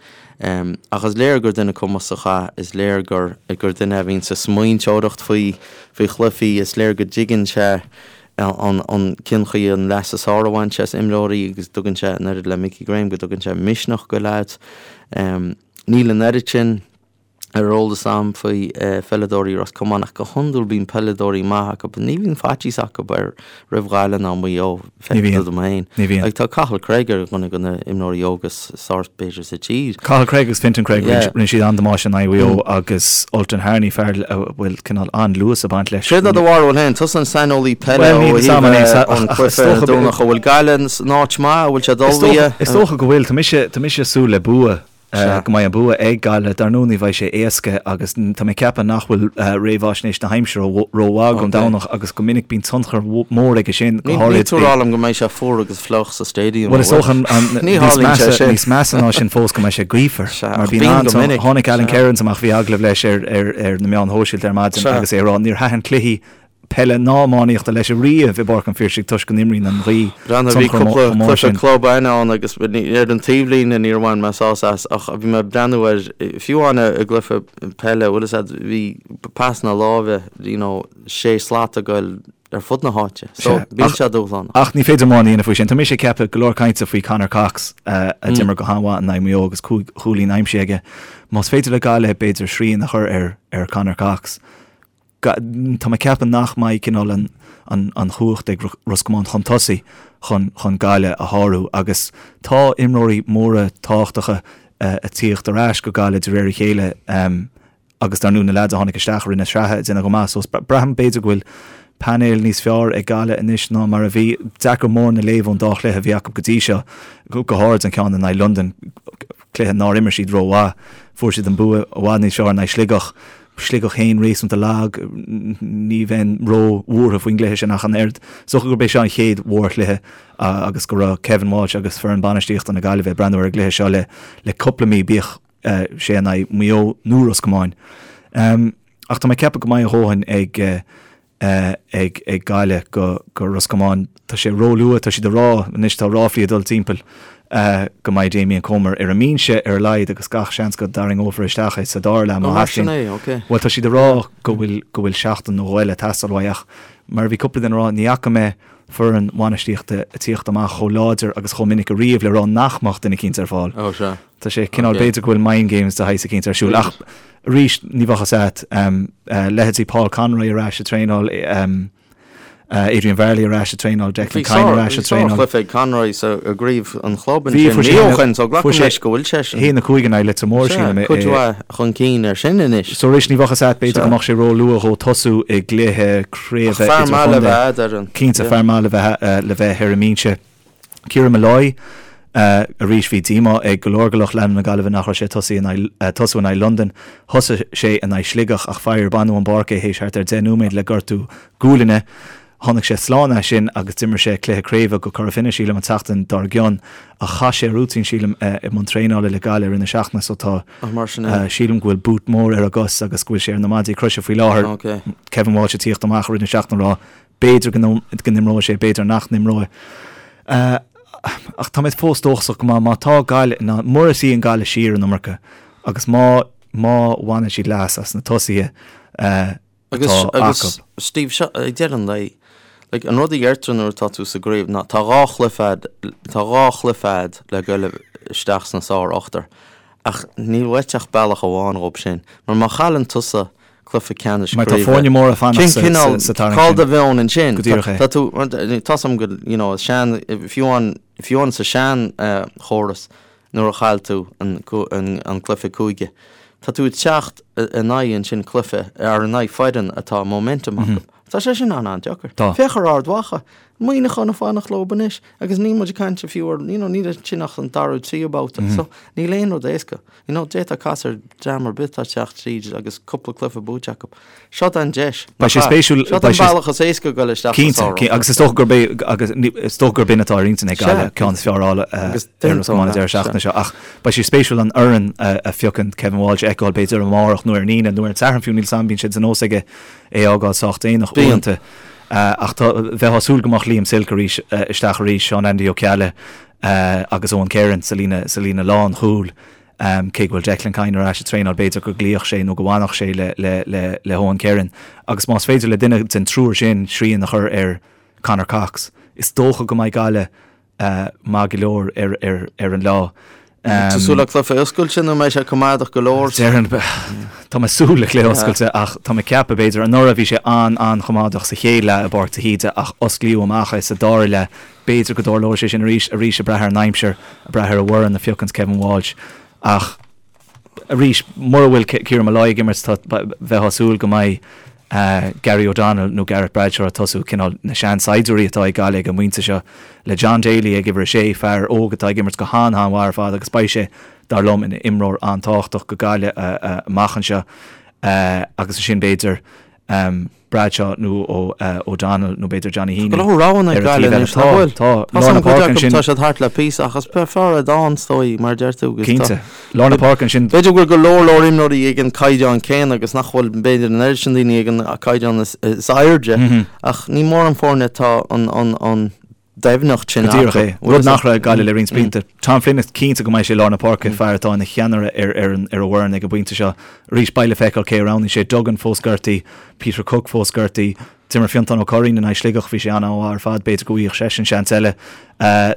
Um, ach is léir gur duine cumasach é, is léir gur, gur duine a bhíonn ag smaointeoireacht faoi, faoi chluichí, is léir go dtuigeann sé. An cén chaoi an leas is fearr a bhaint as imreoirí agus tugann sé an oiread le Mickey Graham go dtugann sé misneach go leaids. Níl an oiread sin ar eolas a'm faoi pheileadóirí Ros Comáin ach go hiondúil bíonn peileadóirí maith acu. Ní bhíonn faitíos acu ar roimh Ghaillimh ná Maigh Eo, feictear dom féin. Ní bhíonn. Like tá Cathal Cregg ar dhuine de na imreoirí óga is fearr b'fhéidir sa tír. Cathal Cregg agus Fintan Cregg, rinne siad an-damáiste in aghaidh Mhaigh Eo agus Ultan Harney, fear a bhfuil cineál an-luas ag baint leis. Céard é do bharúil féin? Tusa an saineolaí peile ó thaobh an cluiche ar an Domhnach. An bhfuil Gaillimh in áit maith? An bhfuil siad ullmhaithe? Is dócha go bhfuil. Tá mise, tá mise ag súil le bua. Sea. Go mbeidh an bua ag Gaillimh. Dar ndóigh ní bheidh sé éasca agus tá mé ag ceapadh nach bhfuil réamhaisnéis na haimsire rómhaith don Domhnach agus go minic bíonn tionchar mór aige sin, go háirid. Níl tú ag rá liom go mbeidh sé fuar agus fliuch sa stadium, an bhfuil? Bhuel is dócha níos measa, níos measa ná sin fós go mbeidh sé gaofar. Sea, ach bíonn go minic. Tháinig Alan Kerins amach, bhí agallamh leis ar na meáin shóisialta ar maidin agus é ag rá níor thaitin cluichí peile ná iománaíochta leis ariamh i bPáirc an Phiarsaigh toisc go n-imríonn an ghaoth Breathnaigh, bhí tionchar cúpla chomh mór cluiche sin. club againn ann agus ar an taobhlíne níor bhain mé sásamh as ach bhí mé ag breathnú ar, fiú amháin i gcluiche peile, bhfuil fhios a'd, bhí pasanna láimhe, you know, sé slat ag goil ar fud na háite. So, Sea, bíonn ach, sé dúshlánach. ach ní féidir mórán a dhéanamh faoi sin. Tá mise ag ceapadh go leor cainte faoi Conor Cox a d'imir go han-mhaith in aghaidh Mhaigh Eo agus 5 chúilín aimsithe aige. Más féidir le Gaillimh b'fhéidir srian a chur ar ar Conor Cox, Tá mé ag ceapadh nach mbeidh cineál an chumhacht ag Ros Comáin chun tosaigh chun Gaillimh a shárú agus tá imreoirí móra tábhachtacha ag tíocht ar ais go Gaillimh de réir a chéile agus dar ndóigh na leaids a tháinig isteach i rith na sraithe ag déanamh go maith so braithim b'fhéidir go bhfuil painéal níos fearr ag Gaillimh anois ná mar a bhí. Deacair mórán a léamh ón dá chluiche a bhí acu go dtí seo, go háirid an ceann in aghaidh Londain, cluiche nár imir siad rómhaith. Fuair siad an bua i bhfad níos fearr in aghaidh Sligeach. Sligeach féin réasúnta lag, ní bheinn ró-bhuartha faoin gcluiche sin ach an oiread. Is dócha gurb é seo an chéad mhórchluiche agus go raibh Kevin Walsh agus foireann bainistíochta na Gaillimhe ag breathnú ar an gcluiche seo le cúpla mí, bíodh sé in aghaidh Mhaigh Eo nó Ros Comáin. Ach tá mé ag ceapadh go mbeidh a dhóthain ag ag ag Gaillimh go go Ros Comáin. Tá sé róluath, tá siad ag rá anois, tá ráflaí ag dul timpeall go mbeidh Damien Comer ar an mbinse ar a laghad agus gach seans go dtarraingeofar isteach é sa dara leath má Ó, mar sin theastaíonn. é, ok. Bhuel, tá siad ag rá go bhfuil go bhfuil seachtain nó dhó eile ag teastáil uaidh ach mar a bhí cúpla duine ag rá, ní fhaca mé foireann bhainistíochta ag tíocht amach chomh láidir agus chomh minic ariamh le rá nach mbeadh duine eicínt ar fáil. Ó, sea. Tá sé cineál, Ok. b'fhéidir go bhfuil mind games de shaghas eicínt ar siúl ach arís ní bheadh fhios a't. Leithéidí Paul Conroy ar ais ag traenáil, Adrian Varley ar ais ag traenáil, Declan Bhí Kyne ar ais ag traenáil. sár-chluiche ag Conroy sa i gcraobh an chlub Bhí, ansin fuair sé mí ó haon, shin so fuair glacaim sé leis go bhfuil seisean. 1-5 in aghaidh Leitir Móir, Sea, sílim, cuid mhaith chun cinn air sin anois. So arís ní bheadh fhios a't, b'fhéidir Sea. go mbeadh sé ró-luath dhó tosú i gcluiche Ach craoibhe fear maith le idirchontae. bheith a'd ar an, Cinnte, yeah. fear maith le bheith le bheith ar an mbinse. Kieran Molloy, Arís bhí díomá ag go leor de lucht leanúna na Gaillimhe nach raibh sé ag tosaí in aghaidh tosú in aghaidh Londain. Thosaigh sé in aghaidh Sligeach ach faraor baineadh ón bpáirc é théis thart ar 10 nóiméad le gortú gualainne. Tháinig sé slán as sin agus d'imir sé cluiche craoibhe go Cora Finne sílim an tseachtain dár gcionn ach chaith sé rúitín sílim i mbun traenála le Gaillimh i rith na seachtaine so tá Ach mar sin é. sílim go bhfuil boot mór ar a gcos agus go bhfuil sé ar na maidí croise faoi láthair. Ok. Kevin Walsh ag tíocht amach i rith na seachtaine ag rá B'fhéidir go n-imreoidh sé, b'fhéidir nach n-imreoidh. Ach tá mé fós dóchasach go maith má tá Gaillimh in ann, mura suíonn Gaillimh siar an iomarca agus má má bhaineann siad leas as na tosaithe atá Agus, agus acu. Steve, seo, ag deireadh an lae, like, an rud a dheirtear nuair atá tú sa gcraobh ná tá dhá chluiche a'd, tá dhá chluiche a'd le goil isteach sna sár-ochtar ach níl uait ach bealach amháin dhób sin mar má chailleann tusa cluiche ceannais Mar tá craoibhe. foirne móra ag fanacht Cén sa cineál, sa tarraingt cá bhfuil sin. do mheon ansin? Go díreach é. Tá tú, tá's a'm go, you know, sean, fiú amháin, fiú amháin sa sean chóras nuair a chaill tú an, an, an cluiche cúige, tá tú ag teacht in aghaidh ansin cluiche, ar in aghaidh foireann atá momentum acu. Tá sé sin an-an-deacair. Tá. Féach ar Ard Mhacha, Muineachán ag fanacht leo anois agus níl muid ag caint fiú ar, you know, níl ansin ach an dara tríú babhta. So níl aon rud éasca. You know, d'fhéadfá casadh ar dream ar bith atá ag teacht tríd agus cúpla cluiche buaite acu. Seo an deis. Beidh sé spéisiúil. Seo an bealach is éasca a dhul isteach sa Cinnte, sár-ochtar. agus is dócha gurb é, agus is dócha gurb in atá ar intinn ag Gaillimh, ceann is fearr a fháil ar Ros Comáin an deireadh seachtaine seo. Ach beidh sé spéisiúil an fhoireann a phiocann Kevin Walsh a fheiceáil b'fhéidir amárach nó ar an Aoine nó ar an Satharn fiú, níl 's a'm, bíonn sé de nós aige é a fhágáil sách déanach uaireanta. Ach tá, bheifeá ag súil go mbeadh Liam Silke arís isteach arís, Seán Andy Ó Ceallaigh agus Eoin Kerron sa líne, sa líne lánchúil. Cé go bhfuil Declan Kyne ar ais ag traenáil, b'fhéidir go gcloífeadh sé nó go bhfanfadh sé le, le, le, le hEoin Kerron. Agus más féidir le duine den triúr sin srian a chur ar. Conor Cox. Is dócha go mbeidh Gaillimh maith go leor ar an lá. Tá súil le cluiche oscailte nó mbeidh sé coimeádach go leor? Déarfainn, tá mé ag súil le cluiche oscailte ach tá mé ag ceapadh, b'fhéidir, anuraidh bhí sé an-an-choimeádach sa chéad leath i bPáirc de hÍde ach osclaíodh amach é sa dara leath. B'fhéidir go dtarlóidh sé sin arís, arís ag brath ar an aimsir, ag brath ar an bhfoireann a phiocanns Kevin Walsh ach arís, mura bhfuil Kieran Molloy ag imirt, tá, bheifeá ag súil go mbeidh Gary O'Donnell nó Gareth Bradshaw ag tosú, cineál na seansaighdiúirí atá ag Gaillimh ag an bpointe seo, le John Daly ag uimhir a sé, fear óg atá ag imirt go han-han-mhaith ar fad agus beidh sé, dar liom, ina imreoir an-tábhachtach go Gaillimh amach anseo agus ansin b'fhéidir Bradshaw nó O'Donnell nó b'fhéidir Johnny Heaney. Tá go leor roghanna ag Gaillimh anois, nach bhfuil? Tá, tá. Lár na páirce ansin. Tá siad thart le píosa ach is fearr é dán, is dóigh, mar a deir tú. Cinnte. Lár na páirce ansin. B'fhéidir go bhfuil go leor leor imreoirí ag an caighdeán céanna agus nach bhfuil b'fhéidir an oiread sin daoine ag an caighdeán is airde ach ní mórán foirne atá an doimhneacht sin acu. Go díreach é. Rud nach raibh ag Gaillimh le roinnt blianta. Tom Flynn is cinnte go mbeidh sé i lár na páirce, fear atá ina cheannaire ar an bhfoireann ag an bpointe seo. Arís beidh le feiceáil cé a roghnaíonn sé. Duggan fós gortaithe, Peter Cooke fós gortaithe. D'imir Fiontán Ó Curraoin in aghaidh Sligeach, bhí sé an-mhaith ar fad, b'fhéidir go bhfaigheadh seisean seans eile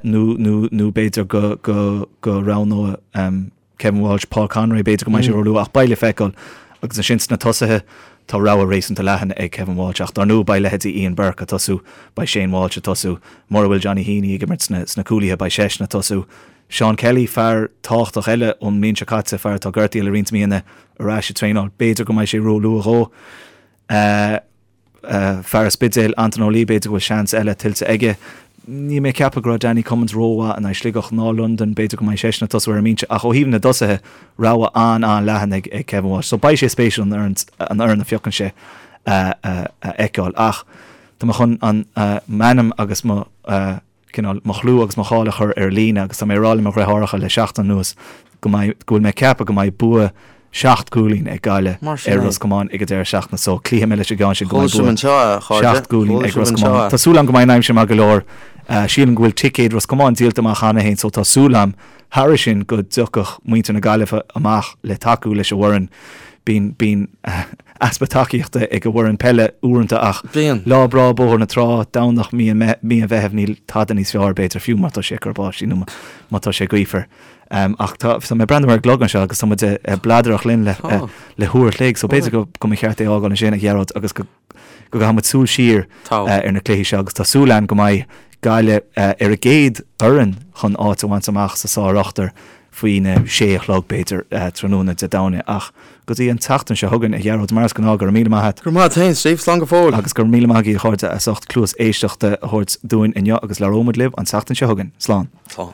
nó nó nó b'fhéidir go go go roghnóidh Kevin Walsh, Paul Conroy, b'fhéidir go mbeidh sé róluath ach beidh le feiceáil. Agus ansin sna tosaithe, tá rogha réasúnta leathan ag Kevin Walsh ach dar ndóigh beidh leithéidí Ian Burke ag tosú, beidh Shane Walsh ag tosú, mura bhfuil Johnny Heaney ag imirt sna sna cúlaithe beidh seisean ag tosú. Seán Kelly, fear tábhachtach eile ón mbliain seo caite, fear atá gortaithe le roinnt míonna, ar ais ag traenáil, b'fhéidir go mbeidh sé róluath dhó. Fear an Spidéil, Anton Ó Laoi, b'fhéidir go bhfuil seans eile tuillte aige. Níl mé ag ceapadh go raibh Danny Cummins rómhaith in aghaidh Sligeach ná Londain, b'fhéidir go mbeidh seisean ag tosú ar an mbinse. Ach ó thaobh na dtosaithe, rogha an-an-leathan ag Kevin Walsh. So beidh sé spéisiúil an fhoireann a phiocann sé a fheiceáil. Ach tá mé chun m'ainm agus mo. cineál mo chlú agus mo cháil a chur ar líne agus tá mé ag rá le mo dhriotháireacha le seachtain anuas go mbeidh, go bhfuil mé ag ceapadh go mbeidh bua sheacht gcúilín ag Gaillimh ar Ros Comáin ag an deireadh seachtaine so cloífidh mé leis an gceann sin go mbeidh bua sheacht gcúilín ag Ros Comáin. Tá súil agam go mbeidh an aimsir maith go leor. Sílim go bhfuil ticéid Ros Comáin díolta amach cheana féin so tá súil agam thairis sin go dtiocfadh muintir na Gaillimhe amach le tacú leis an bhfoireann. Bíonn, bíonn easpa tacaíochta ag an bhfoireann peile uaireanta ach lá breá Bóthar na Trá, Domhnach mí an Mheithimh níl tada níos fearr b'fhéidir fiú má tá sé ag cur báistí nó má tá sé gaofar. Ach tá mé ag breathnú ar an gclog anseo agus tá muid ag bladaireacht linn le le huair a chloig so b'fhéidir go go mba cheart é a fhágáil ansin a Ghearóid agus go go gcaithfidh muid súil siar ar na cluichí seo agus tá súil agam go mbeidh Gaillimh ar an gcéad fhoireann chun áit a bhaint amach sa sár-ochtar faoina sé a chlog, b'fhéidir, tráthnóna Dé Domhnaigh. Ach go dtí an tseachtain seo chugainn, a Ghearóid, mar is gnáth, go raibh míle maith a't. Go raibh maith a't féin, Steve. Slán go fóill. Agus go raibh míle maith agaibh, a chairde, as ucht cluas éisteachta a thabhairt dúinn inniu agus labhróidh muid libh an tseachtain seo chugainn. Slán. Slán.